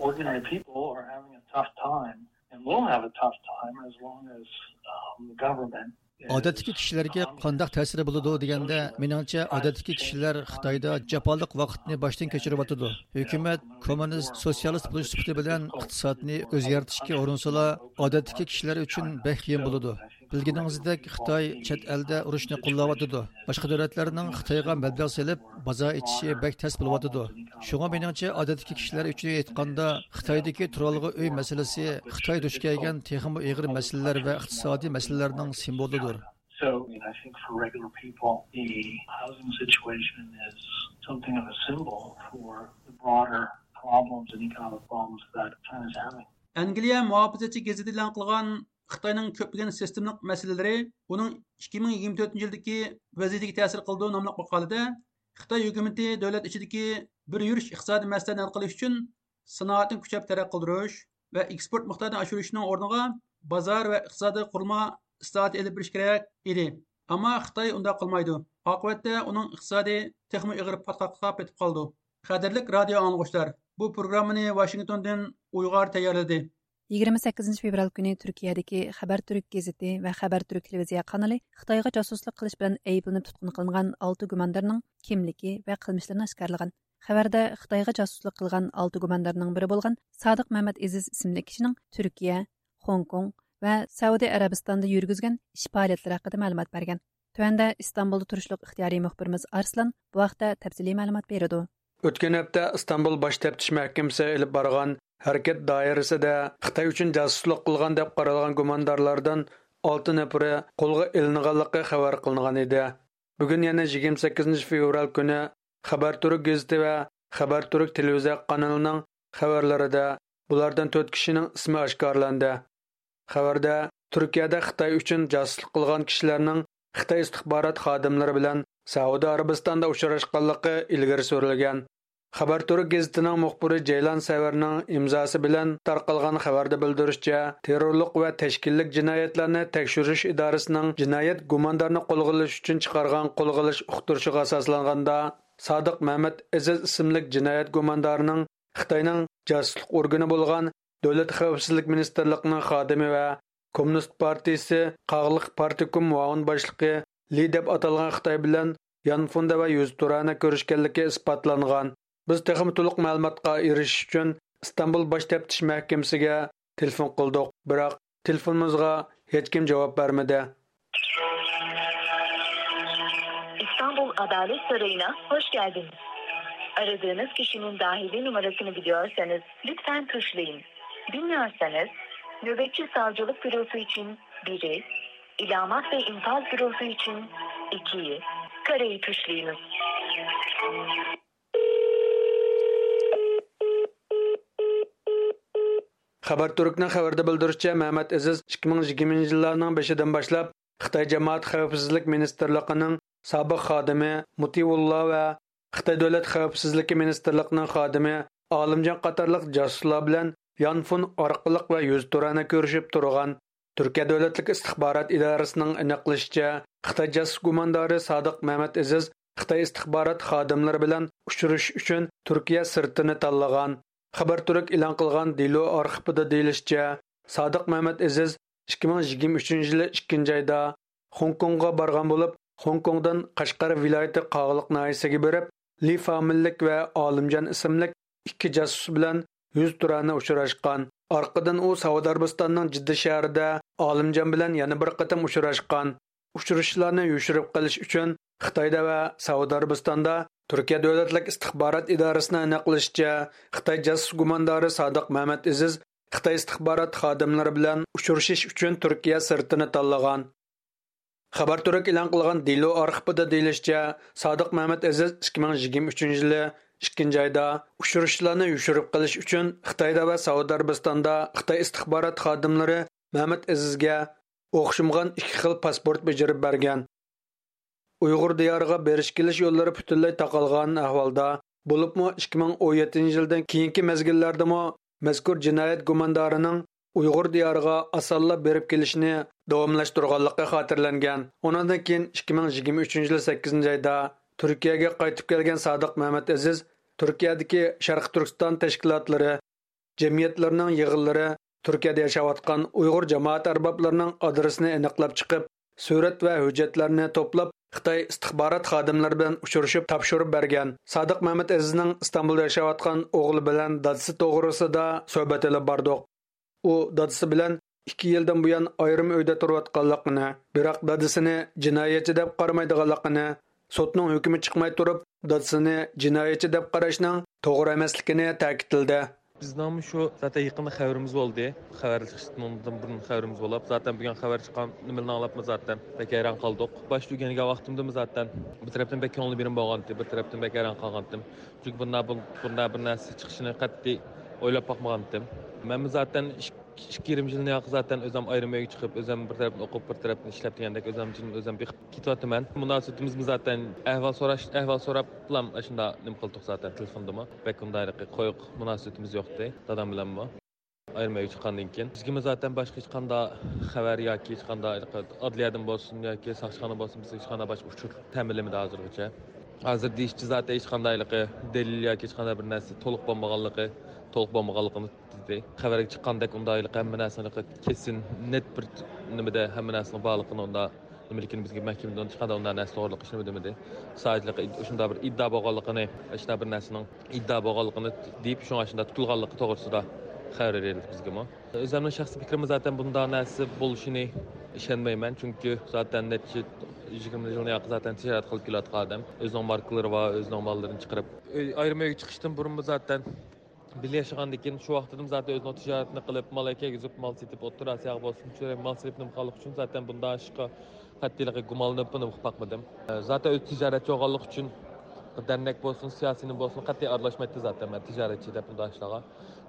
ordinary people are having a tough time and will have a tough time as long as um, the government ئادەتتىكى كىشىلەرگە قانداق تەسىرى بولىدۇ دېگەندە، مېنىڭچە، ئادەتتىكى كىشىلەر خىتايدا جاپالىق ۋاقىتنى باشتىن كەچۈرۈۋاتىدۇ. ھۆكۈمەت كوممۇنىست، سوتسىيالىست بولۇش سۈپىتى بىلەن ئىقتىسادنى ئۆزگەرتىشكە ئۇرۇنسىلا، ئادەتتىكى كىشىلەر ئۈچۈن بەك قىيىن بولىدۇ. بىلگىنىڭىزدەك، خىتاي چەت ئەلدە ئۇرۇشنى قوللاۋاتىدۇ. باشقا دۆلەتلەرنىڭ خىتايغا مەبلەغ سېلىپ، بازار ئېچىشى بەك تەس بولۇۋاتىدۇ. شۇڭا مېنىڭچە، ئادەتتىكى كىشىلەر ئۈچۈن ئېيتقاندا، خىتايدىكى تۇرالغۇ ئۆي مەسىلىسى خىتاي دۇچ كەلگەن تېخىمۇ ئېغىر مەسىلىلەر ۋە ئىقتىسادىي مەسىلىلەرنىڭ سىمۋولىدۇر. So, I mean, I think for regular people, the housing situation is something of a symbol for the broader problems and economic problems that China's having. ئەنگلىيە مۇھاپىزەتچى گېزىتى ئېلان قىلغان خىتاينىڭ كۆپلىگەن سىستېمىلىق مەسىلىلىرى ئۇنىڭ ئىككى مىڭ يىگىرمە تۆتىنچى يىلدىكى ۋەزىيىتىگە تەسىر قىلىدۇ ناملىق ماقالىدە، خىتاي ھۆكۈمىتى دۆلەت ئىچىدىكى بىر يۈرۈش ئىقتىسادىي مەسىلىلەرنى ھەل قىلىش ئۈچۈن سانائەتنى كۈچەپ تەرەققىي قىلدۇرۇش ۋە ئېكسپورت مىقدارىنى ئاشۇرۇشنىڭ ئورنىغا بازار ۋە ئىقتىسادىي قۇرۇلما ئىسلاھاتى ئېلىپ بېرىش كېرەك ئىدى. ئەمما خىتاي ئۇنداق قىلمايدۇ. ئاقىۋەتتە ئۇنىڭ ئىقتىسادى تېخىمۇ ئېغىر پاتقاققا پېتىپ قالىدۇ. قەدىرلىك رادىيو ئاڭلىغۇچىلار، بۇ پروگراممىنى ۋاشىنگتوندىن ئۇيغار تەييارلىدى. يىگىرمە سەككىزىنچى فېۋرال كۈنى تۈركىيەدىكى خەبەر تۈرك گېزىتى ۋە خەبەر تۈرك تېلېۋىزىيە قانىلى خىتايغا جاسۇسلۇق قىلىش بىلەن ئەيىبلىنىپ تۇتقۇن قىلىنغان ئالتە گۇماندارنىڭ كىملىكى ۋە قىلمىشلىرىنى ئاشكارىلىغان. خەۋەردە خىتايغا جاسۇسلۇق قىلغان ئالتە گۇماندارنىڭ بىرى بولغان سادىق مەمەت ئېزىز ئىسىملىك كىشىنىڭ تۈركىيە، خوڭكوڭ ۋە سەئۇدى ئەرەبىستاندا يۈرگۈزگەن ئىش پائالىيەتلىرى ھەققىدە مەلۇمات بەرگەن. تۆۋەندە ئىستانبۇلدا تۇرۇشلۇق ئىختىيارىي مۇخبىرىمىز ئارسلان بۇ ھەقتە تەپسىلىي مەلۇمات بېرىدۇ. ئۆتكەن ھەپتە ئىستانبۇل باش تەپتىش مەھكىمىسى ئېلىپ بارغان ھەرىكەت دائىرىسىدە خىتاي ئۈچۈن جاسۇسلۇق قىلغان دەپ قارالغان گۇماندارلاردىن ئالتە نەپىرى قولغا ئېلىنغانلىقى خەۋەر قىلىنغان ئىدى. بۈگۈن يەنە يىگىرمە سەككىزىنچى فېۋرال كۈنى خەبەر تۈرك گېزىتى ۋە خەبەر تۈرك تېلېۋىزىيە قانىلىنىڭ خەۋەرلىرىدە بۇلاردىن تۆت كىشىنىڭ ئىسمى ئاشكارىلاندى. خەۋەردە تۈركىيەدە خىتاي ئۈچۈن جاسۇسلۇق قىلغان كىشىلەرنىڭ خىتاي ئىستىخبارات خادىملىرى بىلەن سەئۇدى ئەرەبىستاندا ئۇچراشقانلىقى ئىلگىرى سۈرۈلگەن. خەبەر تۈرك گېزىتىنىڭ مۇخبىرى جەيلان سەۋەرنىڭ ئىمزاسى بىلەن تارقالغان خەۋەردە بىلدۈرۈشىچە، تېررورلۇق ۋە تەشكىللىك جىنايەتلەرنى تەكشۈرۈش ئىدارىسىنىڭ جىنايەت گۇماندارىنى قولغا ئېلىش ئۈچۈن چىقارغان قولغا ئېلىش ئۇقتۇرۇشىغا ئاساسلانغاندا، سادىق مەمەت ئېزىز ئىسىملىك جىنايەت گۇماندارىنىڭ خىتاينىڭ جاسۇسلۇق ئورگىنى بولغان دۆلەت خەۋپسىزلىك مىنىستىرلىقىنىڭ خادىمى ۋە كوممۇنىست پارتىيىسى قاغىلىق پارتكوم مۇئاۋىن باشلىقى لى دەپ ئاتالغان خىتاي بىلەن يانفوندا ۋە يۈزتۇرانە كۆرۈشكەنلىكى ئىسپاتلانغان. بىز تېخىمۇ تولۇق مەلۇماتقا ئېرىشىش ئۈچۈن ئىستانبۇل باش تەپتىش مەھكىمىسىگە تېلېفون قىلدۇق، بىراق تېلېفونىمىزغا ھېچكىم جاۋاب بەرمىدى. İstanbul Adalet Sarayı'na hoş geldiniz. Aradığınız kişinin dahili numarasını biliyorsanız lütfen tuşlayın. Bilmiyorsanız nöbetçi savcılık bürosu için biri, ilamat ve infaz bürosu için ikiyi, kareyi tuşlayınız. خەبەر تۈركنىڭ خەۋىرىدە بىلدۈرۈشىچە، مەمەت ئېزىز ئىككى مىڭ يىگىرمىنچى يىللارنىڭ بېشىدىن باشلاپ خىتاي جامائەت خەۋپسىزلىك مىنىستىرلىقىنىڭ سابىق خادىمى مۇتىۋۇللا ۋە خىتاي دۆلەت خەۋپسىزلىكى مىنىستىرلىقىنىڭ خادىمى ئالىمجان قاتارلىق جاسۇسلار بىلەن يانفون ئارقىلىق ۋە يۈزتۇرانە كۆرۈشۈپ تۇرغان. تۈركىيە دۆلەتلىك ئىستىخبارات ئىدارىسىنىڭ ئېنىقلىشىچە، خىتاي جاسۇس گۇماندارى سادىق مەمەت ئېزىز خىتاي ئىستىخبارات خادىملىرى بىلەن ئۇچرىشىش ئۈچۈن تۈركىيە سىرتىنى تاللىغان. خەبەر تۈرك ئېلان قىلغان دېلو ئارخىپىدا دېيىلىشىچە، سادىق مەمەت ئېزىز ئىككى مىڭ يىگىرمە ئۈچىنچى يىلى ئىككىنچى ئايدا خوڭكوڭغا بارغان بولۇپ، خوڭكوڭدىن قەشقەر ۋىلايىتى قاغىلىق ناھىيەسىگە بېرىپ، لى فامىللىك ۋە ئالىمجان ئىسىملىك ئىككى جاسۇس بىلەن يۈزتۇرانە ئۇچراشقان. ئارقىدىن ئۇ سەئۇدى ئەرەبىستاننىڭ جىددە شەھىرىدە ئالىمجان بىلەن يەنە بىر قېتىم ئۇچراشقان. ئۇچرىشىشلارنى يوشۇرۇپ قېلىش ئۈچۈن خىتايدا ۋە سەئۇدى ئەرەبىستاندا تۈركىيە دۆلەتلىك ئىستىخبارات ئىدارىسىنىڭ ئېنىقلىشىچە، خىتاي جاسۇس گۇماندارى سادىق مەمەت ئېزىز خىتاي ئىستىخبارات خادىملىرى بىلەن ئۇچرىشىش ئۈچۈن تۈركىيە سىرتىنى تاللىغان. خەبەر تۈرك ئېلان قىلغان دېلو ئارخىپىدا دېيىلىشىچە، سادىق مەمەت ئەزىز ئىككى مىڭ يىگىرمە ئۈچىنچى يىلى ئىككىنچى ئايدا ئۇچرىشىشلارنى يوشۇرۇپ قېلىش ئۈچۈن خىتايدا ۋە سەئۇدى ئەرەبىستاندا خىتاي ئىستىخبارات خادىملىرى مەمەت ئەزىزگە ئوخشىمىغان ئىككى خىل پاسپورت بېجىرىپ بەرگەن. ئۇيغۇر دىيارىغا بېرىش كېلىش يوللىرى پۈتۈنلەي تاقالغان ئەھۋالدا، بولۇپمۇ ئىككى مىڭ ئون يەتتىنچى يىلدىن كېيىنكى مەزگىللەردىمۇ مەزكۇر جىنايەت گۇماندارىنىڭ ئۇيغۇر دىيارىغا ئاسانلا بېرىپ كېلىشىنى داۋاملاشتۇرغانلىقى خاتىرىلەنگەن. ئۇنىڭدىن كېيىن ئىككى مىڭ يىگىرمە ئۈچىنچى يىل سەككىزىنچى ئايدا تۈركىيەگە قايتىپ كەلگەن سادىق مەمەت ئەزىز تۈركىيەدىكى شەرقىي تۈركىستان تەشكىلاتلىرى، جەمئىيەتلىرىنىڭ يىغىنلىرى، تۈركىيەدە ياشاۋاتقان ئۇيغۇر جامائەت ئەربابلىرىنىڭ ئادرېسىنى ئېنىقلاپ چىقىپ، سۈرەت ۋە ھۆججەتلەرنى توپلاپ، خىتاي ئىستىخبارات خادىملىرى بىلەن ئۇچرىشىپ تاپشۇرۇپ بەرگەن. سادىق مەمەت ئەزىزنىڭ ئىستانبۇلدا ياشاۋاتقان ئوغلى بىلەن دادىسى توغرىسىدا سۆھبەت ئېلىپ باردۇق. ئۇ دادىسى بىلەن ئىككى يىلدىن بۇيان ئايرىم ئۆيدە تۇرۇۋاتقانلىقىنى، بىراق دادىسىنى جىنايەتچى دەپ قارىمايدىغانلىقىنى، سوتنىڭ ھۆكمى چىقماي تۇرۇپ، دادىسىنى جىنايەتچى دەپ قاراشنىڭ توغرا ئەمەسلىكىنى تەكىتلىدى. بىزنىڭمۇ شۇ زاتەن يېقىندا خەۋىرىمىز بولدى. خەۋەر چىقىشتىن بۇرۇن خەۋىرىمىز بولۇپ، زاتەن بۈگۈن خەۋەر چىققان نېمىنى ئاڭلاپمۇ زاتەن بەك ھەيران قالدۇق. باشتا ئۆگەنگەن ۋاقتىمدىمۇ زاتەن بىر تەرەپتىن بەك كۆڭلى بېرىم بولغانتى، بىر تەرەپتىن بەك ھەيران قالغانتىم. چۈنكى بۇنداق بىر، بۇنداق بىر نەرسە چىقىشىنى قەتئىي ئويلاپ باقمىغانتىم. مەنمۇ زاتەن ئىككى، ئىككى يېرىم يىلنى ياقى زاتەن ئۆزۈم ئايرىم ئۆيگە چىقىپ، ئۆزۈم بىر تەرەپتىن ئوقۇپ، بىر تەرەپتىن ئىشلەپ دېگەندەك ئۆزۈم جىم ئۆزۈم بېقىپ كېتىۋاتىمەن. مۇناسىۋىتىمىزمۇ زاتەن ئەھۋال سوراش، ئەھۋال سوراپلام ئاشۇنداق نېمە قىلدۇق زاتەن تېلېفوندىمۇ. بەك ئۇنداق ھېلىقى قويۇق مۇناسىۋىتىمىز يوقتى دادام بىلەنمۇ. ئايرىم ئۆيگە چىققاندىن كېيىن بىزگىمۇ زاتەن باشقا ھېچقانداق خەۋەر ياكى ھېچقانداق ئادلىيەدىن بولسۇن ياكى ساقچىخانا بولسۇن، بىزگە ھېچقانداق باشقا ئۇچۇر تەمىنلىمىدى ھازىرغىچە. ھازىر دېيىشىچە زاتەن ھېچقانداق ھېلىقى دەلىل ياكى ھېچقانداق بىر نەرسە تولۇق بولمىغانلىقى، تولۇق بولمىغانلىقىنى دېدى. خەۋەرگە چىققاندەك ئۇنداق ھېلىقى ھەممە نەرسىنى ھېلىقى كېسىن، نېت بىر نېمىدە ھەممە نەرسىنىڭ بارلىقىنى ئۇنداق نېمىلىكىنى بىزگە مەھكىمىدىن ھېچقانداق ئۇنداق نەرسە توغرىلىق ھېچنېمە دېمىدى. سادىچىلىقى شۇنداق بىر ئىددا بولغانلىقىنى، شۇنداق بىر نەرسىنىڭ ئىددا بولغانلىقىنى دېيىپ، شۇڭا شۇنداق تۇتۇلغانلىقى توغرىسىدا خەۋەر بېرىلدى بىزگىمۇ. ئۆزۈمنىڭ شەخسىي پىكرىمى زاتەن بۇنداق نەرسە بولۇشىنى ئىشەنمەيمەن، چۈنكى زاتەن نەچچە يىگىرمە يىلنى ياقى زاتەن تىجارەت قىلىپ كېلىۋاتقان ئادەم. ئۆزىنىڭ ماركىلىرى بار، ئۆزىنىڭ ماللىرىنى چىقىرىپ، ئۆي، ئايرىم ئۆيگە چىقىشتىن بۇرۇنمۇ زاتەن بىللە ياشىغاندىكىن شۇ ۋاقتىدىمۇ زاتەن ئۆزىنىڭ تىجارىتىنى قىلىپ، مال ئەكەرگۈزۈپ، مال سېتىپ، ئوتتۇرا ئاسىياغا بولسۇن، شۇ مال سېلىپ نېمە قىلغانلىقى ئۈچۈن زاتەن بۇنداق ئىشقا قەتئىيلىقى گۇمانلىنىپمۇ نېمە قىلىپ باقمىدىم. زاتەن ئۆزى تىجارەتچى بولغانلىقى ئۈچۈن دەرنەك بولسۇن، سىياسىينى بولسۇن، قەتئىي ئارىلاشمايتتى زاتەن، مەن تىجارەتچى دەپ ئۇنداق ئىشلارغا.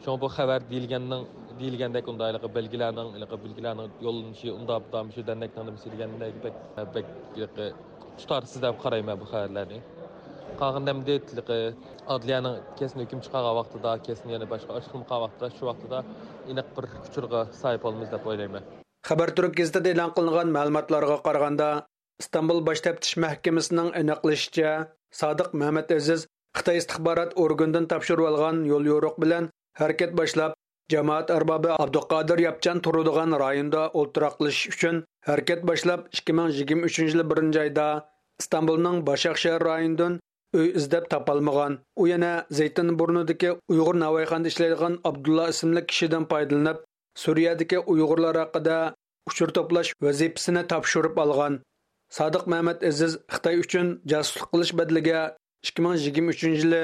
شۇڭا بۇ خەۋەر دېيىلگەننىڭ، دېيىلگەندەك ئۇنداق ھېلىقى بەلگىلەرنىڭ، ھېلىقى بەلگىلەرنىڭ يوللىنىشى، ئۇنداق بۇنداق مۇشۇ دەرنەكنىڭ نېمىسى دېگەندەك بەك، بەك ھېلىقى تۇتارسىز دەپ قارايمەن بۇ خەۋەرلەرنى. قالغىنىدا ئەمدى ھېلىقى ئادلىيەنىڭ كەسىنى ھۆكۈم چىقارغان ۋاقتىدا، كەسىنى يەنە باشقا ئاچىقلىمىغان ۋاقتىدا، شۇ ۋاقتىدا ئېنىق بىر ئۇچۇرغا ساھىب بولىمىز دەپ ئويلايمەن. خەبەر تۈرك گېزىتىدە ئېلان قىلىنغان مەلۇماتلارغا قارىغاندا، ئىستانبۇل باش تەپتىش مەھكىمىسىنىڭ ئېنىقلىشىچە، سادىق مەمەت ئەزىز خىتاي ئىستىخبارات ئورگىنىدىن تاپشۇرۇۋالغان يوليورۇق بىلەن ھەرىكەت باشلاپ، جامائەت ئەربابى ئابدۇقادىر ياپچان تۇرىدىغان رايوندا ئولتۇراقلىشىش ئۈچۈن ھەرىكەت باشلاپ، ئىككى مىڭ يىگىرمە ئۈچىنچى يىلى بىرىنچى ئايدا ئىستانبۇلنىڭ باشاق شەھەر رايونىدىن ئۆي ئىزدەپ تاپالمىغان. ئۇ يەنە زەيتىنبۇرنۇدىكى ئۇيغۇر ناۋايخانىدا ئىشلەيدىغان ئابدۇللا ئىسىملىك كىشىدىن پايدىلىنىپ، سۈرىيەدىكى ئۇيغۇرلار ھەققىدە ئۇچۇر توپلاش ۋەزىپىسىنى تاپشۇرۇپ ئالغان. سادىق مەمەت ئەزىز خىتاي ئۈچۈن جاسۇسلۇق قىلىش بەدىلىگە ئىككى مىڭ يىگىرمە ئۈچىنچى يىلى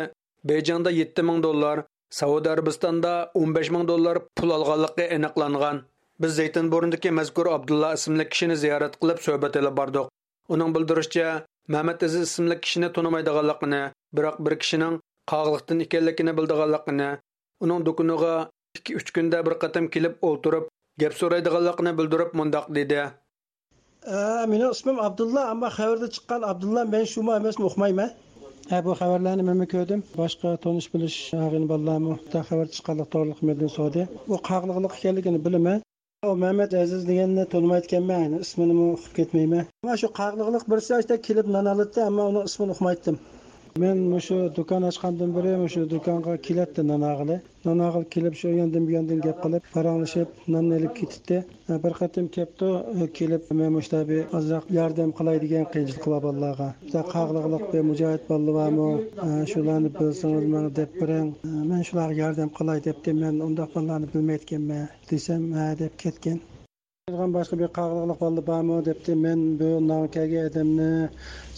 بېيجىڭدا يەتتە مىڭ دوللار، سەئۇدى ئەرەبىستاندا ئون بەش مىڭ دوللار پۇل ئالغانلىقى ئېنىقلانغان. بىز زەيتىنبۇرنىدىكى مەزكۇر ئابدۇللا ئىسىملىك كىشىنى زىيارەت قىلىپ سۆھبەت ئېلىپ باردۇق. ئۇنىڭ بىلدۈرۈشىچە، مەمەت ئەزىز ئىسىملىك كىشىنى تونۇمايدىغانلىقىنى، بىراق بىر كىشىنىڭ قاغىلىقتىن ئىكەنلىكىنى بىلىدىغانلىقىنى، ئۇنىڭ دۇكىنىغا ئىككى، ئۈچ كۈندە بىر قېتىم كېلىپ ئولتۇرۇپ، گەپ سورايدىغانلىقىنى بىلدۈرۈپ مۇنداق دېدى. ئە، مېنىڭ ئىسمىم ئابدۇللا، ئەمما خەۋەردە چىققان ئابدۇللا مەن شۇمۇ ئەمەسمۇ ئۇقمايمەن. ھە، بۇ خەۋەرلەرنى مەنمۇ كۆردۈم. باشقا تونۇش بىلىش ئاغىنە بالىلارمۇ خەۋەر چىققانلىق توغرىلىق مەندىن سورىدى. بۇ قاغىلىقلىق ئىكەنلىكىنى بىلىمەن. ئۇ مەمەت ئەزىز دېگەننى تونۇمايدىكەنمەن، ئىسمىنىمۇ ئۇقۇپ كەتمەيمەن. مانا شۇ قاغىلىقلىق بىرسى ئاشتا كېلىپ نان ئالاتتى، ئەمما ئۇنىڭ ئىسمىنى ئۇقمايتتىم. مەن مۇشۇ دۇكان ئاچقاندىن بېرى مۇشۇ دۇكانغا كېلەتتى نان ئالغىلى. نان ئالغىلى كېلىپ، شۇ ياندىن بۇ ياندىن گەپ قىلىپ، پاراڭلىشىپ، ناننى ئېلىپ كېتەتتى. بىر قېتىم كەپتۇ، كېلىپ، مەن مۇشۇنداق بىر ئازراق ياردەم قىلاي دېگەن قىيىنچىلىقى بار بالىلارغا. بۇنداق قاغىلىقلىق بىر مۇجاھىد بالىلار بارمۇ؟ شۇلارنى بىلسىڭىز ماڭا دەپ بېرىڭ. مەن شۇلارغا ياردەم قىلاي دەپتىم. مەن ئۇنداق بالىلارنى بىلمەيدىكەنمەن دېسەم، ھە دەپ كەتكەن. باشقا بىر قاغىلىقلىق بالىلار بارمۇ دەپتى. مەن بۇ نانغا كەلگەن ئادەمنى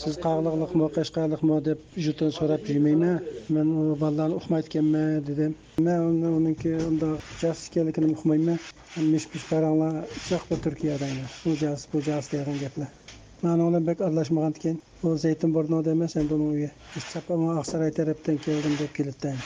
سىز قاغىلىقلىقمۇ، قەشقەرلىقمۇ دەپ يوتۇن سوراپ يۈرمەيمەن. مەن ئۇ بالىلارنى ئۇقمايدىكەنمەن دېدىم. مەن ئۇنى، ئۇنىڭكى ئۇنداق جاسۇس ئىكەنلىكىنى ئۇقمايمەن. مىش-مىش پاراڭلار، ئۇششاق بىر تۈركىيەدە ئەمەس. بۇ جاسۇس، بۇ جاسۇس دەيدىغان گەپلەر. مەن ئۇنىڭ بىلەن بەك ئارىلاشمىغانىكەن. بۇ زەيتىنبۇرنۇدا ئەمەس، ئەمدى ئۇنىڭ ئۆيى. چاپپان ئاقساراي تەرەپتىن كەلدىم دەپ كېلىدىكەن.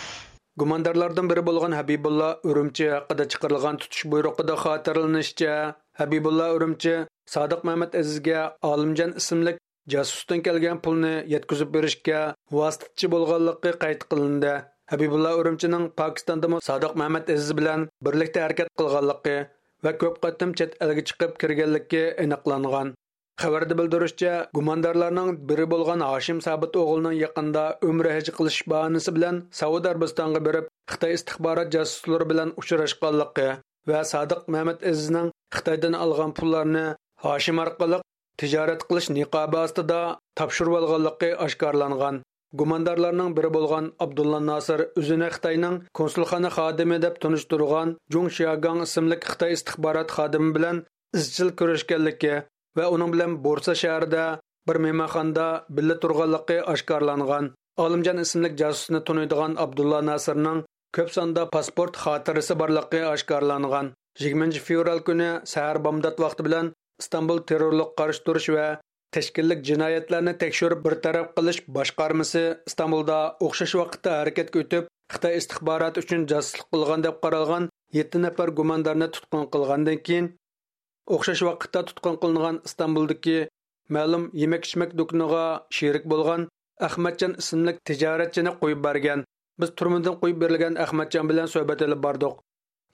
گۇماندارلاردىن بىرى بولغان ھەبىبۇللا ئۈرۈمچى ھەققىدە چىقىرىلغان تۇتۇش بۇيرۇقىدا خاتىرىلىنىشىچە، ھەبىبۇللا ئۈرۈمچى سادىق مەمەت ئەزىزگە ئالىمجان ئىسىملىك جاسۇستىن كەلگەن پۇلنى يەتكۈزۈپ بېرىشكە ۋاسىتىچى بولغانلىقى قەيت قىلىندى. ھەبىبۇللا ئۈرۈمچىنىڭ پاكىستاندىمۇ سادىق مەمەت ئەزىز بىلەن بىرلىكتە ھەرىكەت قىلغانلىقى ۋە كۆپ قېتىم چەت ئەلگە چىقىپ كىرگەنلىكى ئېنىقلانغان. خەۋەردە بىلدۈرۈشىچە، گۇماندارلارنىڭ بىرى بولغان ھاشىم سابىت ئوغلىنىڭ يېقىندا ئۆمرە ھەج قىلىش باھانىسى بىلەن سەئۇدى ئەرەبىستانغا بېرىپ، خىتاي ئىستىخبارات جاسۇسلىرى بىلەن ئۇچراشقانلىقى ۋە سادىق مەمەت ئەزىزنىڭ خىتايدىن ئالغان پۇللارنى ھاشىم ئارقىلىق تىجارەت قىلىش نىقابى ئاستىدا تاپشۇرۇۋالغانلىقى ئاشكارىلانغان. گۇماندارلارنىڭ بىرى بولغان ئابدۇللا ناسىر ئۆزىنى خىتاينىڭ كونسۇلخانا خادىمى دەپ تونۇشتۇرغان جۇڭ شياگاڭ ئىسىملىك خىتاي ئىستىخبارات خادىمى بىلەن ئىزچىل كۆرۈشكەنلىكى ۋە ئۇنىڭ بىلەن بورسا شەھىرىدە بىر مېھمانخانىدا بىللە تۇرغانلىقى ئاشكارىلانغان. ئالىمجان ئىسىملىك جاسۇسنى تونۇيدىغان ئابدۇللا ناسىرنىڭ كۆپ ساندا پاسپورت خاتىرىسى بارلىقى ئاشكارىلانغان. يىگىرمىنچى فېۋرال كۈنى سەھەر بامدات ۋاقتى بىلەن ئىستانبۇل تېررورلۇققا قارشى تۇرۇش ۋە تەشكىللىك جىنايەتلەرنى تەكشۈرۈپ بىر تەرەپ قىلىش باشقارمىسى ئىستانبۇلدا ئوخشاش ۋاقىتتا ھەرىكەتكە ئۆتۈپ، خىتاي ئىستىخباراتى ئۈچۈن جاسۇسلۇق قىلغان دەپ قارالغان يەتتە نەپەر گۇماندارنى تۇتقۇن قىلغاندىن كېيىن، ئوخشاش ۋاقىتتا تۇتقۇن قىلىنغان ئىستانبۇلدىكى مەلۇم يېمەك-ئىچمەك دۇكىنىغا شېرىك بولغان ئەخمەتجان ئىسىملىك تىجارەتچىنى قويۇپ بەرگەن. بىز تۈرمىدىن قويۇپ بېرىلگەن ئەخمەتجان بىلەن سۆھبەت ئېلىپ باردۇق.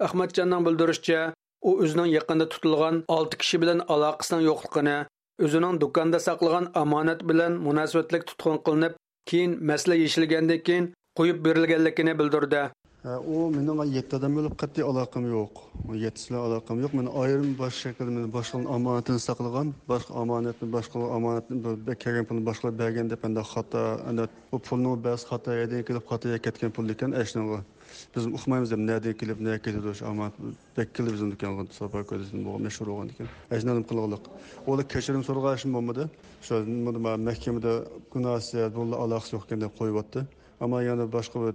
ئەخمەتجاننىڭ بىلدۈرۈشىچە، ئۇ ئۆزىنىڭ يېقىندا تۇتۇلغان ئالتە كىشى بىلەن ئالاقىسىنىڭ يوقلۇقىنى، ئۆزىنىڭ دۇكاندا ساقلىغان ئامانەت بىلەن مۇناسىۋەتلىك تۇتقۇن قىلىنىپ، كېيىن مەسىلە يېشىلگەندىن كېيىن قويۇپ بېرىلگەنلىكىنى بىلدۈردى. ھە، ئۇ مېنىڭ يەتتە ئادەم بولۇپ قەتئىي ئالاقەم يوق. ئۇ يەتتىسى بىلەن ئالاقەم يوق. مېنى ئايرىم باشقا شەكىلدە مېنى باشقىلارنىڭ ئامانىتىنى ساقلىغان، باشقا ئامانەتنى، باشقىلار ئامانەتنى بىر، بىر كەلگەن پۇلنى باشقىلارغا بەرگەن دەپ، ئەندى خاتا، ئەندى بۇ پۇلنىڭ بەزى خاتا يەردىن كېلىپ، خاتا يەرگە كەتكەن پۇل ئىكەن، ئەشنىڭغا. بىزمۇ ئۇقمايمىز دەپ، نەدىن كېلىپ، نەگە كېتىدۇ شۇ ئامانەت. بەك كېلىدۇ بىزنىڭ دۇكانغا، ساپا كۆرسىتىپ بولغان، مەشھۇر بولغاندىكىن. ئەشنى نېمە قىلغانلىق. ئۇلار كەچۈرۈم سورىغان ئىشمۇ بولمىدى. شۇ نېمىدە، مەھكىمىدە گۇناھسىز، بۇنىڭ ئالاقىسى يوق ئىكەن دەپ قويۇۋەتتى. ئەمما يەنە باشقا بىر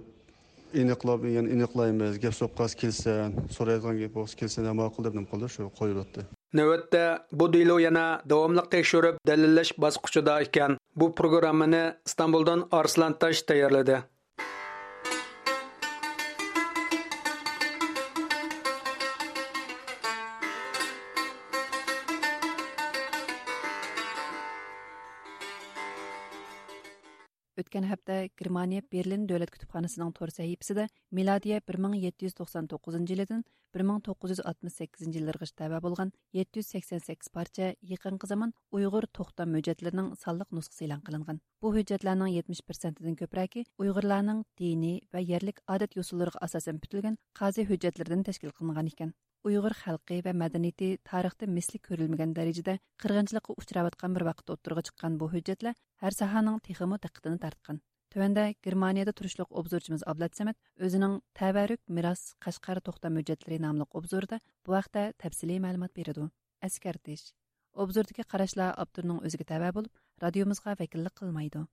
ئېنىقلاپ، يەنە ئېنىقلايمىز، گەپ سوققان كېلسە، سورايدىغان گەپ بولسا كېلسە، ماقۇل دەپ نېمە قىلدى، شۇ قويۇۋەتتى. نۆۋەتتە بۇ دېلو يەنە داۋاملىق تەكشۈرۈپ، دەلىللەش باسقۇچىدا ئىكەن. بۇ پروگراممىنى ئىستانبۇلدىن ئارسلان تاش تەييارلىدى. ئۆتكەن ھەپتە گېرمانىيە بېرلىن دۆلەت كۇتۇپخانىسىنىڭ تور سەھىپىسىدە مىلادىيە بىر مىڭ يەتتە يۈز توقسان توققۇزىنچى يىلىدىن بىر مىڭ توققۇز يۈز ئاتمىش سەككىزىنچى يىللىرىغىچە تەۋە بولغان يەتتە يۈز سەكسەن سەككىز پارچە يېقىنقى زامان ئۇيغۇر توختام ھۆججەتلىرىنىڭ سانلىق نۇسخىسى ئېلان قىلىنغان. بۇ ھۆججەتلەرنىڭ يەتمىش پىرسەنتىدىن كۆپرەكى ئۇيغۇرلارنىڭ دىنىي ۋە يەرلىك ئادەت-يوسۇنلىرىغا ئاساسەن پۈتۈلگەن قازى ھۆججەتلىرىدىن تەشكىل قىلىنغان ئىكەن. ئۇيغۇر خەلقى ۋە مەدەنىيىتى تارىختا مىسلى كۆرۈلمىگەن دەرىجىدە قىرغىنچىلىققا ئۇچراۋاتقان بىر ۋاقىتتا ئوتتۇرىغا چىققان بۇ ھۆججەتلەر ھەر ساھەنىڭ تېخىمۇ دىققىتىنى تارتقان. تۆۋەندە گېرمانىيەدە تۇرۇشلۇق ئوبزورچىمىز ئابلەت سەمەت ئۆزىنىڭ تەۋەررۈك مىراس قەشقەر توختام ھۆججەتلىرى ناملىق ئوبزورىدا بۇ ھەقتە تەپسىلىي مەلۇمات بېرىدۇ. ئەسكەرتىش: ئوبزوردىكى قاراشلار ئاپتورنىڭ ئۆزىگە تەۋە بولۇپ، رادىيومىزغا ۋەكىللىك قىلمايدۇ.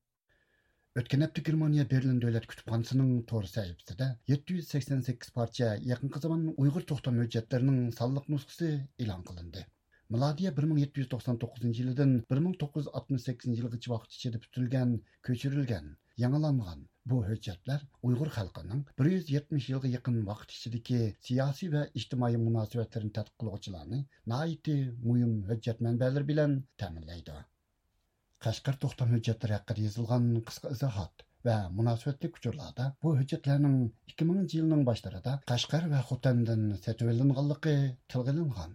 ئۆتكەن ھەپتە گېرمانىيە بېرلىن دۆلەت كۇتۇپخانىسىنىڭ تور سەھىپىسىدە يەتتە يۈز سەكسەن سەككىز پارچە يېقىنقى زامان ئۇيغۇر توختام ھۆججەتلىرىنىڭ سانلىق نۇسخىسى ئېلان قىلىندى. مىلادىيە بىر مىڭ يەتتە يۈز توقسان توققۇزىنچى يىلىدىن بىر مىڭ توققۇز يۈز ئاتمىش سەككىزىنچى يىلغىچە ۋاقىت ئىچىدە پۈتۈلگەن، كۆچۈرۈلگەن، يېڭىلانغان بۇ ھۆججەتلەر ئۇيغۇر خەلقىنىڭ بىر يۈز يەتمىش يىلغا يېقىن ۋاقىت ئىچىدىكى سىياسىي ۋە ئىجتىمائىي مۇناسىۋەتلىرىنى تەتقىق قىلغۇچىلارنى ناھايىتى مۇھىم ھۆججەت مەنبەلىرى بىلەن تەمىنلەيدۇ. قەشقەر توختام ھۆججەتلىرى ھەققىدە يېزىلغان قىسقا ئىزاھات ۋە مۇناسىۋەتلىك ئۇچۇرلاردا بۇ ھۆججەتلەرنىڭ ئىككى مىڭىنچى يىلنىڭ باشلىرىدا قەشقەر ۋە خوتەندىن سېتىۋېلىنغانلىقى تىلغا ئېلىنغان.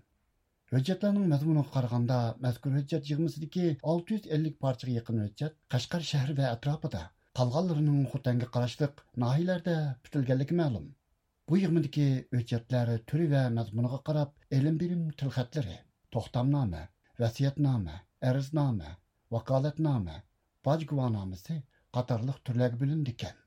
ھۆججەتلەرنىڭ مەزمۇنىغا قارىغاندا، مەزكۇر ھۆججەت يىغمىسىدىكى ئالتە يۈز ئەللىك پارچىغا يېقىن ھۆججەت قەشقەر شەھىرى ۋە ئەتراپىدا، قالغانلىرىنىڭ خوتەنگە قاراشلىق ناھىيىلەردە پۈتۈلگەنلىكى مەلۇم. بۇ يىغمىدىكى ھۆججەتلەر تۈرى ۋە مەزمۇنىغا قاراپ ئېلىم بېرىم تىلخەتلىرى، توختامنامە، ۋەسىيەتنامە، ئەرزنامە، ۋاكالەتنامە، باج گۇۋاھنامىسى قاتارلىق تۈرلەرگە بۆلۈنىدىكەن.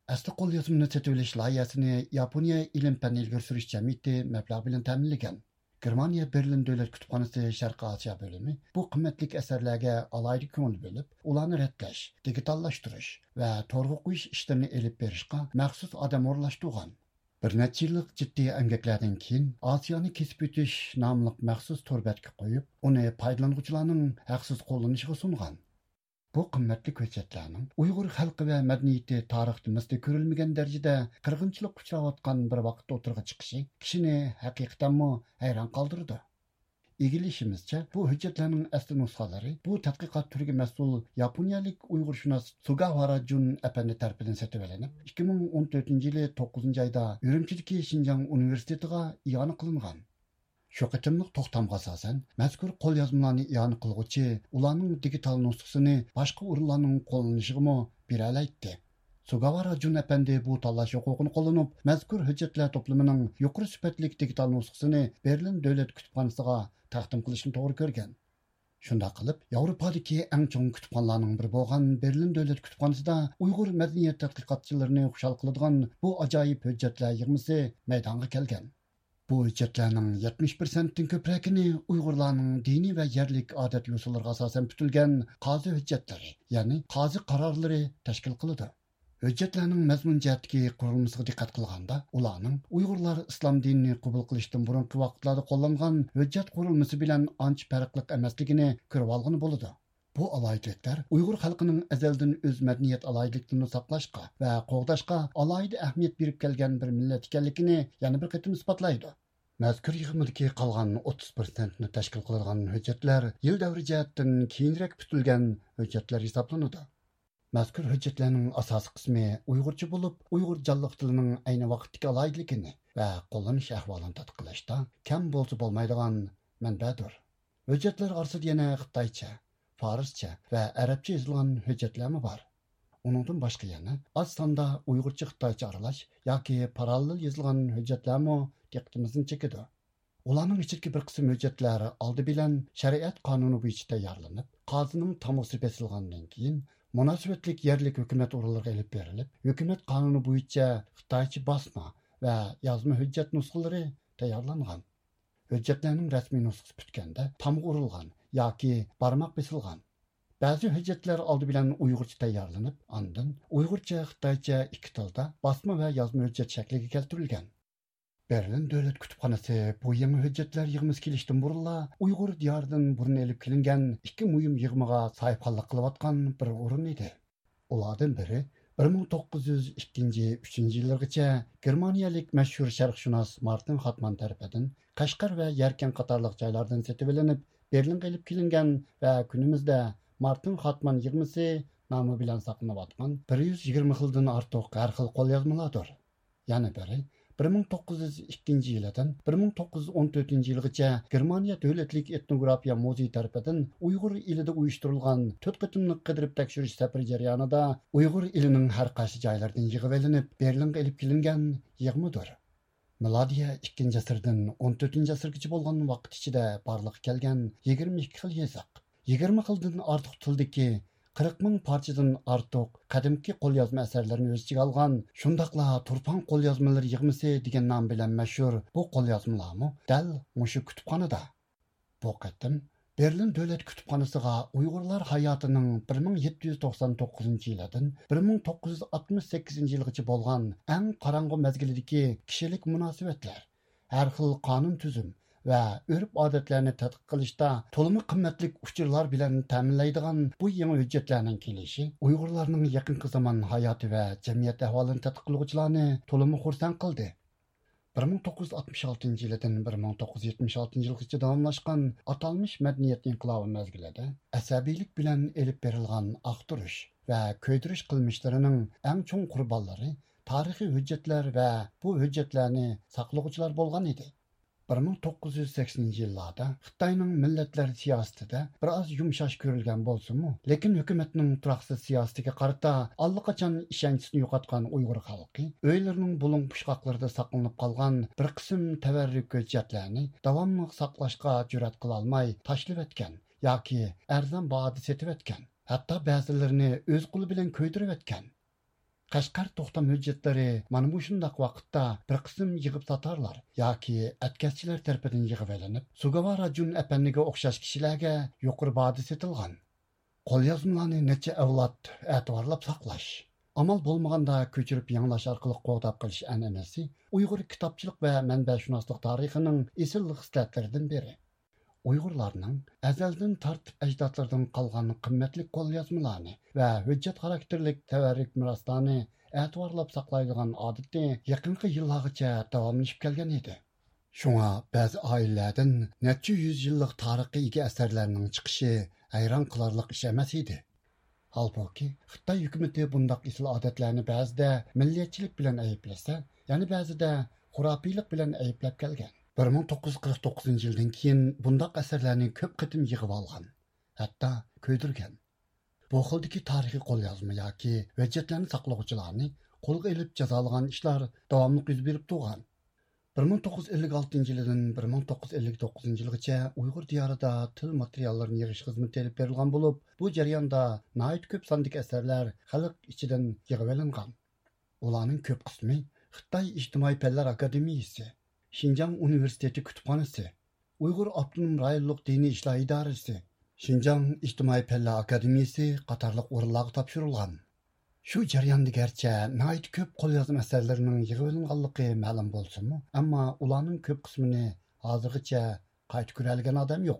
ئەسلى قوليازمىنى سېتىۋېلىش لايىھەسىنى ياپونىيە ئىلىم پەن ئىلگىرى سۈرۈش جەمئىيىتى مەبلەغ بىلەن تەمىنلىگەن. گېرمانىيە بېرلىن دۆلەت كۇتۇپخانىسى شەرقىي ئاسىيا بۆلۈمى بۇ قىممەتلىك ئەسەرلەرگە ئالاھىدە كۆڭۈل بۆلۈپ، ئۇلارنى رەتلەش، دىگىتاللاشتۇرۇش ۋە تورغا قويۇش ئىشلىرىنى ئېلىپ بېرىشقا مەخسۇس ئادەم ئورۇنلاشتۇرغان. بىر نەچچە يىللىق جىددىي ئەمگەكلەردىن كېيىن، ئاسىيانى كېسىپ ئۆتۈش ناملىق مەخسۇس تور بەتكە قويۇپ، ئۇنى پايدىلانغۇچىلارنىڭ ھەقسىز قوللىنىشىغا سۇنغان. بۇ قىممەتلىك ھۆججەتلەرنىڭ ئۇيغۇر خەلقى ۋە مەدەنىيىتى تارىختا مىسلى كۆرۈلمىگەن دەرىجىدە قىرغىنچىلىققا ئۇچراۋاتقان بىر ۋاقىتتا ئوتتۇرىغا چىقىشى كىشىنى ھەقىقەتەنمۇ ھەيران قالدۇرىدۇ. ئىگىلىشىمىزچە، بۇ ھۆججەتلەرنىڭ ئەسلى نۇسخىلىرى بۇ تەتقىقات تۈرىگە مەسئۇل ياپونىيەلىك ئۇيغۇرشۇناس سۇگاۋارا جۇن ئەپەندى تەرىپىدىن سېتىۋېلىنىپ، ئىككى مىڭ ئون تۆتىنچى يىلى توققۇزىنچى ئايدا ئۈرۈمچىدىكى شىنجاڭ ئۇنىۋېرسىتېتىغا ئىئانە قىلىنغان. شۇ قېتىملىق توختامغا ئاساسەن، مەزكۇر قوليازمىلارنى ئىئانە قىلغۇچى ئۇلارنىڭ دىگىتال نۇسخىسىنى باشقا ئورۇنلارنىڭ قوللىنىشىغىمۇ بېرەلەيتتى. سۇگاۋارا جۇن ئەپەندى بۇ تاللاش ھوقۇقىنى قوللىنىپ، مەزكۇر ھۆججەتلەر توپلىمىنىڭ يۇقىرى سۈپەتلىك دىگىتال نۇسخىسىنى بېرلىن دۆلەت كۇتۇپخانىسىغا تەقدىم قىلىشنى توغرا كۆرگەن. شۇنداق قىلىپ، ياۋروپادىكى ئەڭ چوڭ كۇتۇپخانىلارنىڭ بىرى بولغان بېرلىن دۆلەت كۇتۇپخانىسىدا ئۇيغۇر مەدەنىيەت تەتقىقاتچىلىرىنى خۇشال قىلىدىغان بۇ ئاجايىپ ھۆججەتلەر يىغمىسى مەيدانغا كەلگەن. بۇ ھۆججەتلەرنىڭ يەتمىش پىرسەنتتىن كۆپرەكىنى ئۇيغۇرلارنىڭ دىنىي ۋە يەرلىك ئادەت يوسۇنلىرىغا ئاساسەن پۈتۈلگەن قازى ھۆججەتلىرى، يەنى قازى قارارلىرى تەشكىل قىلىدۇ. ھۆججەتلەرنىڭ مەزمۇن جەھەتتىكى قۇرۇلمىسىغا دىققەت قىلغاندا، ئۇلارنىڭ ئۇيغۇرلار ئىسلام دىنىنى قوبۇل قىلىشتىن بۇرۇنقى ۋاقىتلاردا قوللانغان ھۆججەت قۇرۇلمىسى بىلەن ئانچە پەرقلىق ئەمەسلىكىنى كۆرۈۋالغىلى بولىدۇ. بۇ ئالاھىدىلىكلەر ئۇيغۇر خەلقىنىڭ ئەزەلدىن ئۆز مەدەنىيەت ئالاھىدىلىكلىرىنى ساقلاشقا ۋە قوغداشقا ئالاھىدە ئەھمىيەت بېرىپ كەلگەن بىر مىللەت ئىكەنلىكىنى يەنە بىر قېتىم ئىسپاتلايدۇ. مەزكۇر يىغمىدىكى قالغان ئوتتۇز پىرسەنتنى تەشكىل قىلىدىغان ھۆججەتلەر يىل دەۋرى جەھەتتىن كېيىنرەك پۈتۈلگەن ھۆججەتلەر ھېسابلىنىدۇ. مەزكۇر ھۆججەتلەرنىڭ ئاساسىي قىسمى ئۇيغۇرچە بولۇپ، ئۇيغۇر جانلىق تىلىنىڭ ئەينى ۋاقىتتىكى ئالاھىدىلىكىنى ۋە قوللىنىش ئەھۋالىنى تەتقىق قىلىشتا كەم بولسا بولمايدىغان مەنبەدۇر. ھۆججەتلەر ئارىسىدا يەنە خىتايچە، فارسچە ۋە ئەرەبچە يېزىلغان ھۆججەتلەرمۇ بار. ئۇنىڭدىن باشقا يەنە ئاز ساندا ئۇيغۇرچە خىتايچە ئارىلاش ياكى پاراللېل يېزىلغان ھۆججەتلەرمۇ دىققىتىمىزنى چېكىدۇ. ئۇلارنىڭ ئىچىدىكى بىر قىسىم ھۆججەتلەر ئالدى بىلەن شەرىئەت قانۇنى بويىچە تەييارلىنىپ، قازىنىڭ تامغىسى بېسىلغاندىن كېيىن، مۇناسىۋەتلىك يەرلىك ھۆكۈمەت ئورۇنلىرىغا ئېلىپ بېرىلىپ، ھۆكۈمەت قانۇنى بويىچە خىتايچە باسما ۋە يازما ھۆججەت نۇسخىلىرى تەييارلانغان. ھۆججەتلەرنىڭ رەسمىي نۇسخىسى پۈتكەندە، تامغا ئۇرۇلغان ياكى بارماق بېسىلغان. بەزى ھۆججەتلەر ئالدى بىلەن ئۇيغۇرچە تەييارلىنىپ، ئاندىن ئۇيغۇرچە، خىتايچە ئىككى تىلدا باسما ۋە يازما ھۆججەت شەكلىگە كەلتۈرۈلگەن. بېرلىن دۆلەت كۇتۇپخانىسى بۇ يېڭى ھۆججەتلەر يىغمىسى كېلىشتىن بۇرۇنلا ئۇيغۇر دىيارىدىن بۇرۇن ئېلىپ كېلىنگەن ئىككى مۇھىم يىغمىغا ساھىبخانلىق قىلىۋاتقان بىر ئورۇن ئىدى. ئۇلاردىن بىرى بىر مىڭ توققۇز يۈز ئىككىنچى، ئۈچىنچى يىللىرىغىچە گېرمانىيەلىك مەشھۇر شەرقشۇناس مارتىن خاتمان تەرىپىدىن قەشقەر ۋە يەركەن قاتارلىق جايلاردىن سېتىۋېلىنىپ، بېرلىنغا ئېلىپ كېلىنگەن ۋە كۈنىمىزدە مارتىن خاتمان يىغمىسى نامى بىلەن ساقلىنىۋاتقان بىر يۈز يىگىرمە خىلدىن ئارتۇق ھەر خىل قوليازمىلاردۇر. يەنە بىرى، بىر مىڭ توققۇز يۈز ئىككىنچى يىلىدىن بىر مىڭ توققۇز يۈز ئون تۆتىنچى يىلغىچە گېرمانىيە دۆلەتلىك ئېتنوگرافىيە مۇزېيى تەرىپىدىن ئۇيغۇر ئېلىدە ئۇيۇشتۇرۇلغان تۆت قېتىملىق قىدىرىپ تەكشۈرۈش سەپىرى جەريانىدا ئۇيغۇر ئېلىنىڭ ھەر قايسى جايلىرىدىن يىغىۋېلىنىپ، بېرلىنغا ئېلىپ كېلىنگەن يىغمىدۇر. مىلادىيە ئىككىنچى ئەسىردىن ئون تۆتىنچى ئەسىرگىچە بولغان ۋاقىت ئىچىدە بارلىققا كەلگەن يىگىرمە ئىككى خىل يېزىق، يىگىرمە خىلدىن ئارتۇق تىلدىكى قىرىق مىڭ پارچىدىن ئارتۇق قەدىمكى قوليازما ئەسەرلىرىنى ئۆز ئىچىگە ئالغان شۇنداقلا تۇرپان قوليازمىلىرى يىغمىسى دېگەن نام بىلەن مەشھۇر بۇ قوليازمىلارمۇ دەل مۇشۇ كۇتۇپخانىدا. بۇ قېتىم بېرلىن دۆلەت كۇتۇپخانىسىغا ئۇيغۇرلار ھاياتىنىڭ بىر مىڭ يەتتە يۈز توقسان توققۇزىنچى يىلىدىن بىر مىڭ توققۇز يۈز ئاتمىش سەككىزىنچى يىلغىچە بولغان ئەڭ قاراڭغۇ مەزگىلىدىكى كىشىلىك مۇناسىۋەتلەر، ھەر خىل قانۇن تۈزۈم ۋە ئۆرپ-ئادەتلەرنى تەتقىق قىلىشتا تولىمۇ قىممەتلىك ئۇچۇرلار بىلەن تەمىنلەيدىغان بۇ يېڭى ھۆججەتلەرنىڭ كېلىشى ئۇيغۇرلارنىڭ يېقىنقى زامان ھاياتى ۋە جەمئىيەت ئەھۋالىنى تەتقىق قىلغۇچىلارنى تولىمۇ خۇرسەن قىلدى. بىر مىڭ توققۇز يۈز ئاتمىش ئالتىنچى يىلىدىن بىر مىڭ توققۇز يۈز يەتمىش ئالتىنچى يىلغىچە داۋاملاشقان ئاتالمىش مەدەنىيەت ئىنقىلابى مەزگىلىدە ئەسەبىيلىك بىلەن ئېلىپ بېرىلغان ئاختۇرۇش ۋە كۆيدۈرۈش قىلمىشلىرىنىڭ ئەڭ چوڭ قۇربانلىرى تارىخىي ھۆججەتلەر ۋە بۇ ھۆججەتلەرنى ساقلىغۇچىلار بولغان ئىدى. بىر مىڭ توققۇز يۈز سەكسىنىنچى يىللاردا خىتاينىڭ مىللەتلەر سىياسىتىدە بىر ئاز يۇمشاش كۆرۈلگەن بولسىمۇ، لېكىن ھۆكۈمەتنىڭ تۇراقسىز سىياسىتىگە قارىتا ئاللىقاچان ئىشەنچىسىنى يوقاتقان ئۇيغۇر خەلقى ئۆيلىرىنىڭ بۇلۇڭ پۇچقاقلىرىدا ساقلىنىپ قالغان بىر قىسىم تەۋەررۈك ھۆججەتلەرنى داۋاملىق ساقلاشقا جۈرئەت قىلالماي تاشلىۋەتكەن ياكى ئەرزان باھادا سېتىۋەتكەن، ھەتتا بەزىلىرىنى ئۆز قولى بىلەن كۆيدۈرۈۋەتكەن. قەشقەر توختام ھۆججەتلىرى مانا مۇشۇنداق ۋاقىتتا بىر قىسىم يىغىپ ساتارلار ياكى ئەتكەسچىلەر تەرىپىدىن يىغىۋېلىنىپ، سۇگاۋارا جۈن ئەپەندىگە ئوخشاش كىشىلەرگە يۇقىرى باھادا سېتىلغان. قوليازمىلارنى نەچچە ئەۋلاد ئەتىۋارلاپ ساقلاش، ئامال بولمىغاندا كۆچۈرۈپ يېڭىلاش ئارقىلىق قوغداپ قېلىش ئەنئەنىسى ئۇيغۇر كىتابچىلىق ۋە مەنبەشۇناسلىق تارىخىنىڭ ئېسىل خىسلەتلىرىدىن بىرى. ئۇيغۇرلارنىڭ ئەزەلدىن تارتىپ ئەجدادلىرىدىن قالغان قىممەتلىك قوليازمىلارنى ۋە ھۆججەت خاراكتېرلىك تەۋەررۈك مىراسلارنى ئەتىۋارلاپ ساقلايدىغان ئادىتى يېقىنقى يىللارغىچە داۋاملىشىپ كەلگەن ئىدى. شۇڭا بەزى ئائىلىلەردىن نەچچە يۈز يىللىق تارىخقا ئىگە ئەسەرلەرنىڭ چىقىشى ھەيران قىلارلىق ئىش ئەمەس ئىدى. ھالبۇكى، خىتاي ھۆكۈمىتى بۇنداق ئېسىل ئادەتلەرنى بەزىدە مىللەتچىلىك بىلەن ئەيىبلىسە، يەنە بەزىدە خۇراپىيلىق بىلەن ئەيىبلەپ كەلگەن. بىر مىڭ توققۇز يۈز قىرىق توققۇزىنچى يىلدىن كېيىن بۇنداق ئەسەرلەرنى كۆپ قېتىم يىغىۋالغان، ھەتتا كۆيدۈرگەن. بۇ خىلدىكى تارىخىي قوليازما ياكى ھۆججەتلەرنى ساقلىغۇچىلارنى قولغا ئېلىپ جازالىغان ئىشلار داۋاملىق يۈز بېرىپ تۇرغان. بىر مىڭ توققۇز يۈز ئەللىك ئالتىنچى يىلىدىن بىر مىڭ توققۇز يۈز ئەللىك توققۇزىنچى يىلغىچە ئۇيغۇر دىيارىدا تىل ماتېرىياللىرىنى يىغىش خىزمىتى ئېلىپ بېرىلغان بولۇپ، بۇ جەرياندا ناھايىتى كۆپ ساندىكى ئەسەرلەر خەلق ئىچىدىن يىغىۋېلىنغان. ئۇلارنىڭ كۆپ قىسمى خىتاي ئىجتىمائىي پەنلەر ئاكادېمىيىسى، شىنجاڭ ئۇنىۋېرسىتېتى كۇتۇپخانىسى، ئۇيغۇر ئاپتونوم رايونلۇق دىنىي ئىشلار ئىدارىسى، شىنجاڭ ئىجتىمائىي پەنلەر ئاكادېمىيىسى قاتارلىق ئورۇنلارغا تاپشۇرۇلغان. شۇ جەرياندا گەرچە ناھايىتى كۆپ قوليازما ئەسەرلىرىنىڭ يىغىۋېلىنغانلىقى مەلۇم بولسىمۇ، ئەمما ئۇلارنىڭ كۆپ قىسمىنى ھازىرغىچە قايتا كۆرەلىگەن ئادەم يوق.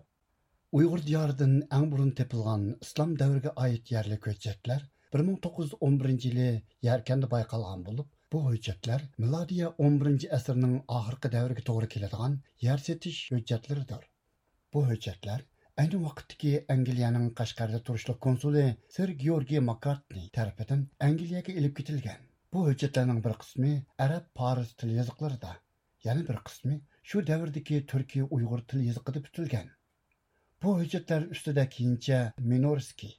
ئۇيغۇر دىيارىدىن ئەڭ بۇرۇن تېپىلغان ئىسلام دەۋرىگە ئائىت يەرلىك ھۆججەتلەر بىر مىڭ توققۇز يۈز ئون بىرىنچى يىلى يەركەندە بايقالغان بولۇپ، بۇ ھۆججەتلەر مىلادىيە ئون بىرىنچى ئەسىرنىڭ ئاخىرقى دەۋرىگە توغرا كېلىدىغان يەر سېتىش ھۆججەتلىرىدۇر. بۇ ھۆججەتلەر ئەينى ۋاقىتتىكى ئەنگلىيەنىڭ قەشقەردە تۇرۇشلۇق كونسۇلى سىر گېئورگىي ماككارتنى تەرىپىدىن ئەنگلىيەگە ئېلىپ كېتىلگەن. بۇ ھۆججەتلەرنىڭ بىر قىسمى ئەرەب، پارس تىل يېزىقلىرىدا، يەنە بىر قىسمى شۇ دەۋردىكى تۈركىي ئۇيغۇر تىل يېزىقىدا پۈتۈلگەن. بۇ ھۆججەتلەر ئۈستىدە كېيىنچە مىنورسكىي،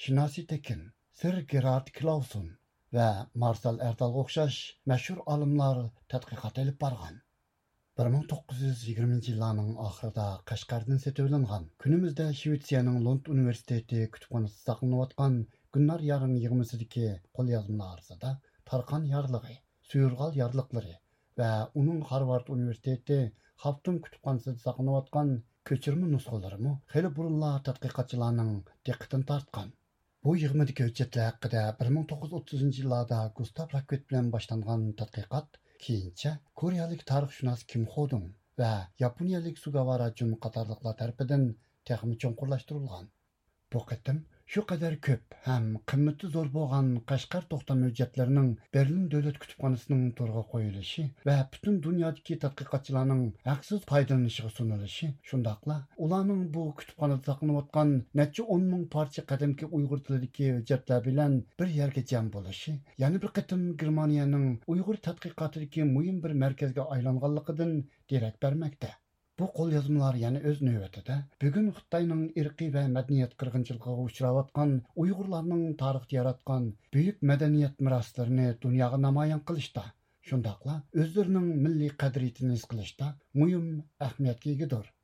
شىناسى تېكىن، سىر گېرارد كلاۋسون ۋە مارسال ئەردالغا ئوخشاش مەشھۇر ئالىملار تەتقىقات ئېلىپ بارغان. بىر مىڭ توققۇز يۈز يىگىرمىنچى يىللارنىڭ ئاخىرىدا قەشقەردىن سېتىۋېلىنغان، كۈنىمىزدە شىۋېتسىيەنىڭ لوند ئۇنىۋېرسىتېتى كۈتۈپخانىسىدا ساقلىنىۋاتقان گۈلنار يارنىڭ يىغمىسىدىكى قوليازمىلار ئارىسىدا تارخان يارلىقى، سۇيۇرغال يارلىقلىرى ۋە ئۇنىڭ خارۋارد ئۇنىۋېرسىتېتى خافتۇم كۇتۇپخانىسىدا ساقلىنىۋاتقان كۆچۈرمە نۇسخىلىرىمۇ خېلى بۇرۇنلا تەتقىقاتچىلارنىڭ دىققىتىنى تارتقان. بۇ يىغمىدىكى ھۆججەتلەر ھەققىدە بىر مىڭ توققۇز يۈز ئوتتۇزىنچى يىللاردا گۇستاف راكۋىت بىلەن باشلانغان تەتقىقات كېيىنچە كورېيەلىك تارىخشۇناس كىم خودۇڭ ۋە ياپونىيەلىك سۇگاۋارا جۇن قاتارلىقلار تەرىپىدىن تېخىمۇ چوڭقۇرلاشتۇرۇلغان. بۇ قېتىم شۇ قەدەر كۆپ ھەم قىممىتى زور بولغان قەشقەر توختام ھۆججەتلىرىنىڭ بېرلىن دۆلەت كۇتۇپخانىسىنىڭ تورغا قويۇلۇشى ۋە پۈتۈن دۇنيادىكى تەتقىقاتچىلارنىڭ ھەقسىز پايدىلىنىشىغا سۇنۇلۇشى، شۇنداقلا ئۇلارنىڭ بۇ كۇتۇپخانىدا ساقلىنىۋاتقان نەچچە ئون مىڭ پارچە قەدىمكى ئۇيغۇر تىلىدىكى ھۆججەتلەر بىلەن بىر يەرگە جەم بولۇشى، يەنە بىر قېتىم گېرمانىيەنىڭ ئۇيغۇر تەتقىقاتىدىكى مۇھىم بىر مەركەزگە ئايلانغانلىقىدىن دېرەك بەرمەكتە. بۇ قوليازمىلار يەنە ئۆز نۆۋىتىدە بۈگۈن خىتاينىڭ ئىرقىي ۋە مەدەنىيەت قىرغىنچىلىقىغا ئۇچراۋاتقان ئۇيغۇرلارنىڭ تارىختا ياراتقان بۈيۈك مەدەنىيەت مىراسلىرىنى دۇنياغا نامايان قىلىشتا، شۇنداقلا ئۆزلىرىنىڭ مىللىي قەدرىيىتىنى ھېس قىلىشتا مۇھىم ئەھمىيەتكە ئىگىدۇر.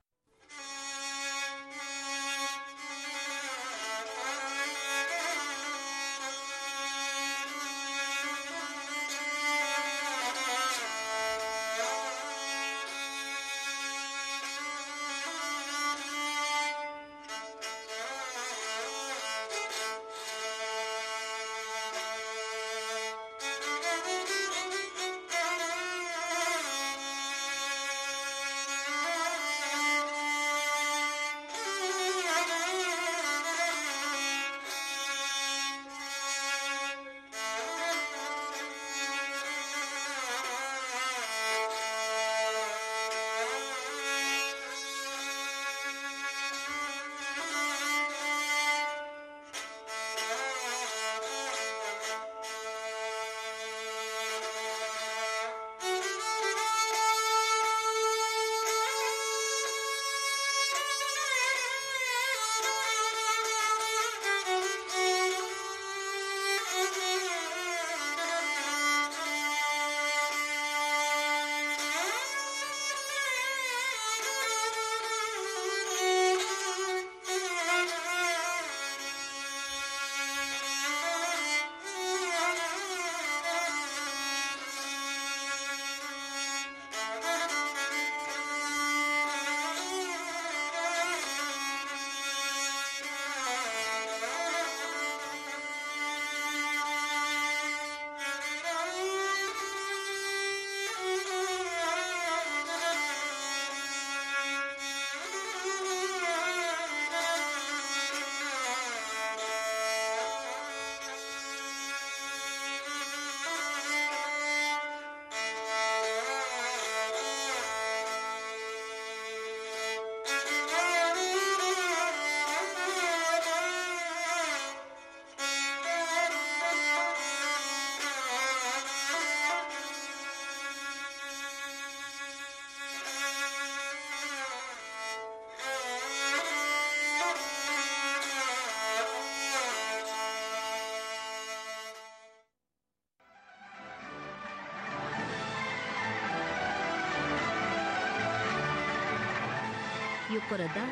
يۇقىرىدا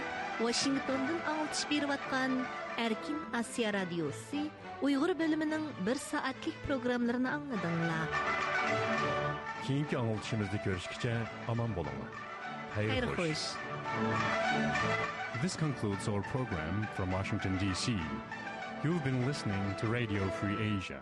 ۋاشىنگتوندىن ئاڭلىتىش بېرىۋاتقان ئەركىن ئاسىيا رادىيوسى ئۇيغۇر بۆلۈمىنىڭ بىر سائەتلىك پروگراممىلىرىنى ئاڭلىدىڭلار. كېيىنكى ئاڭلىتىشىمىزدا كۆرۈشكىچە ئامان بولۇڭلار. خەير خوش. This concludes our program from Washington, D C. You've been listening to Radio Free Asia.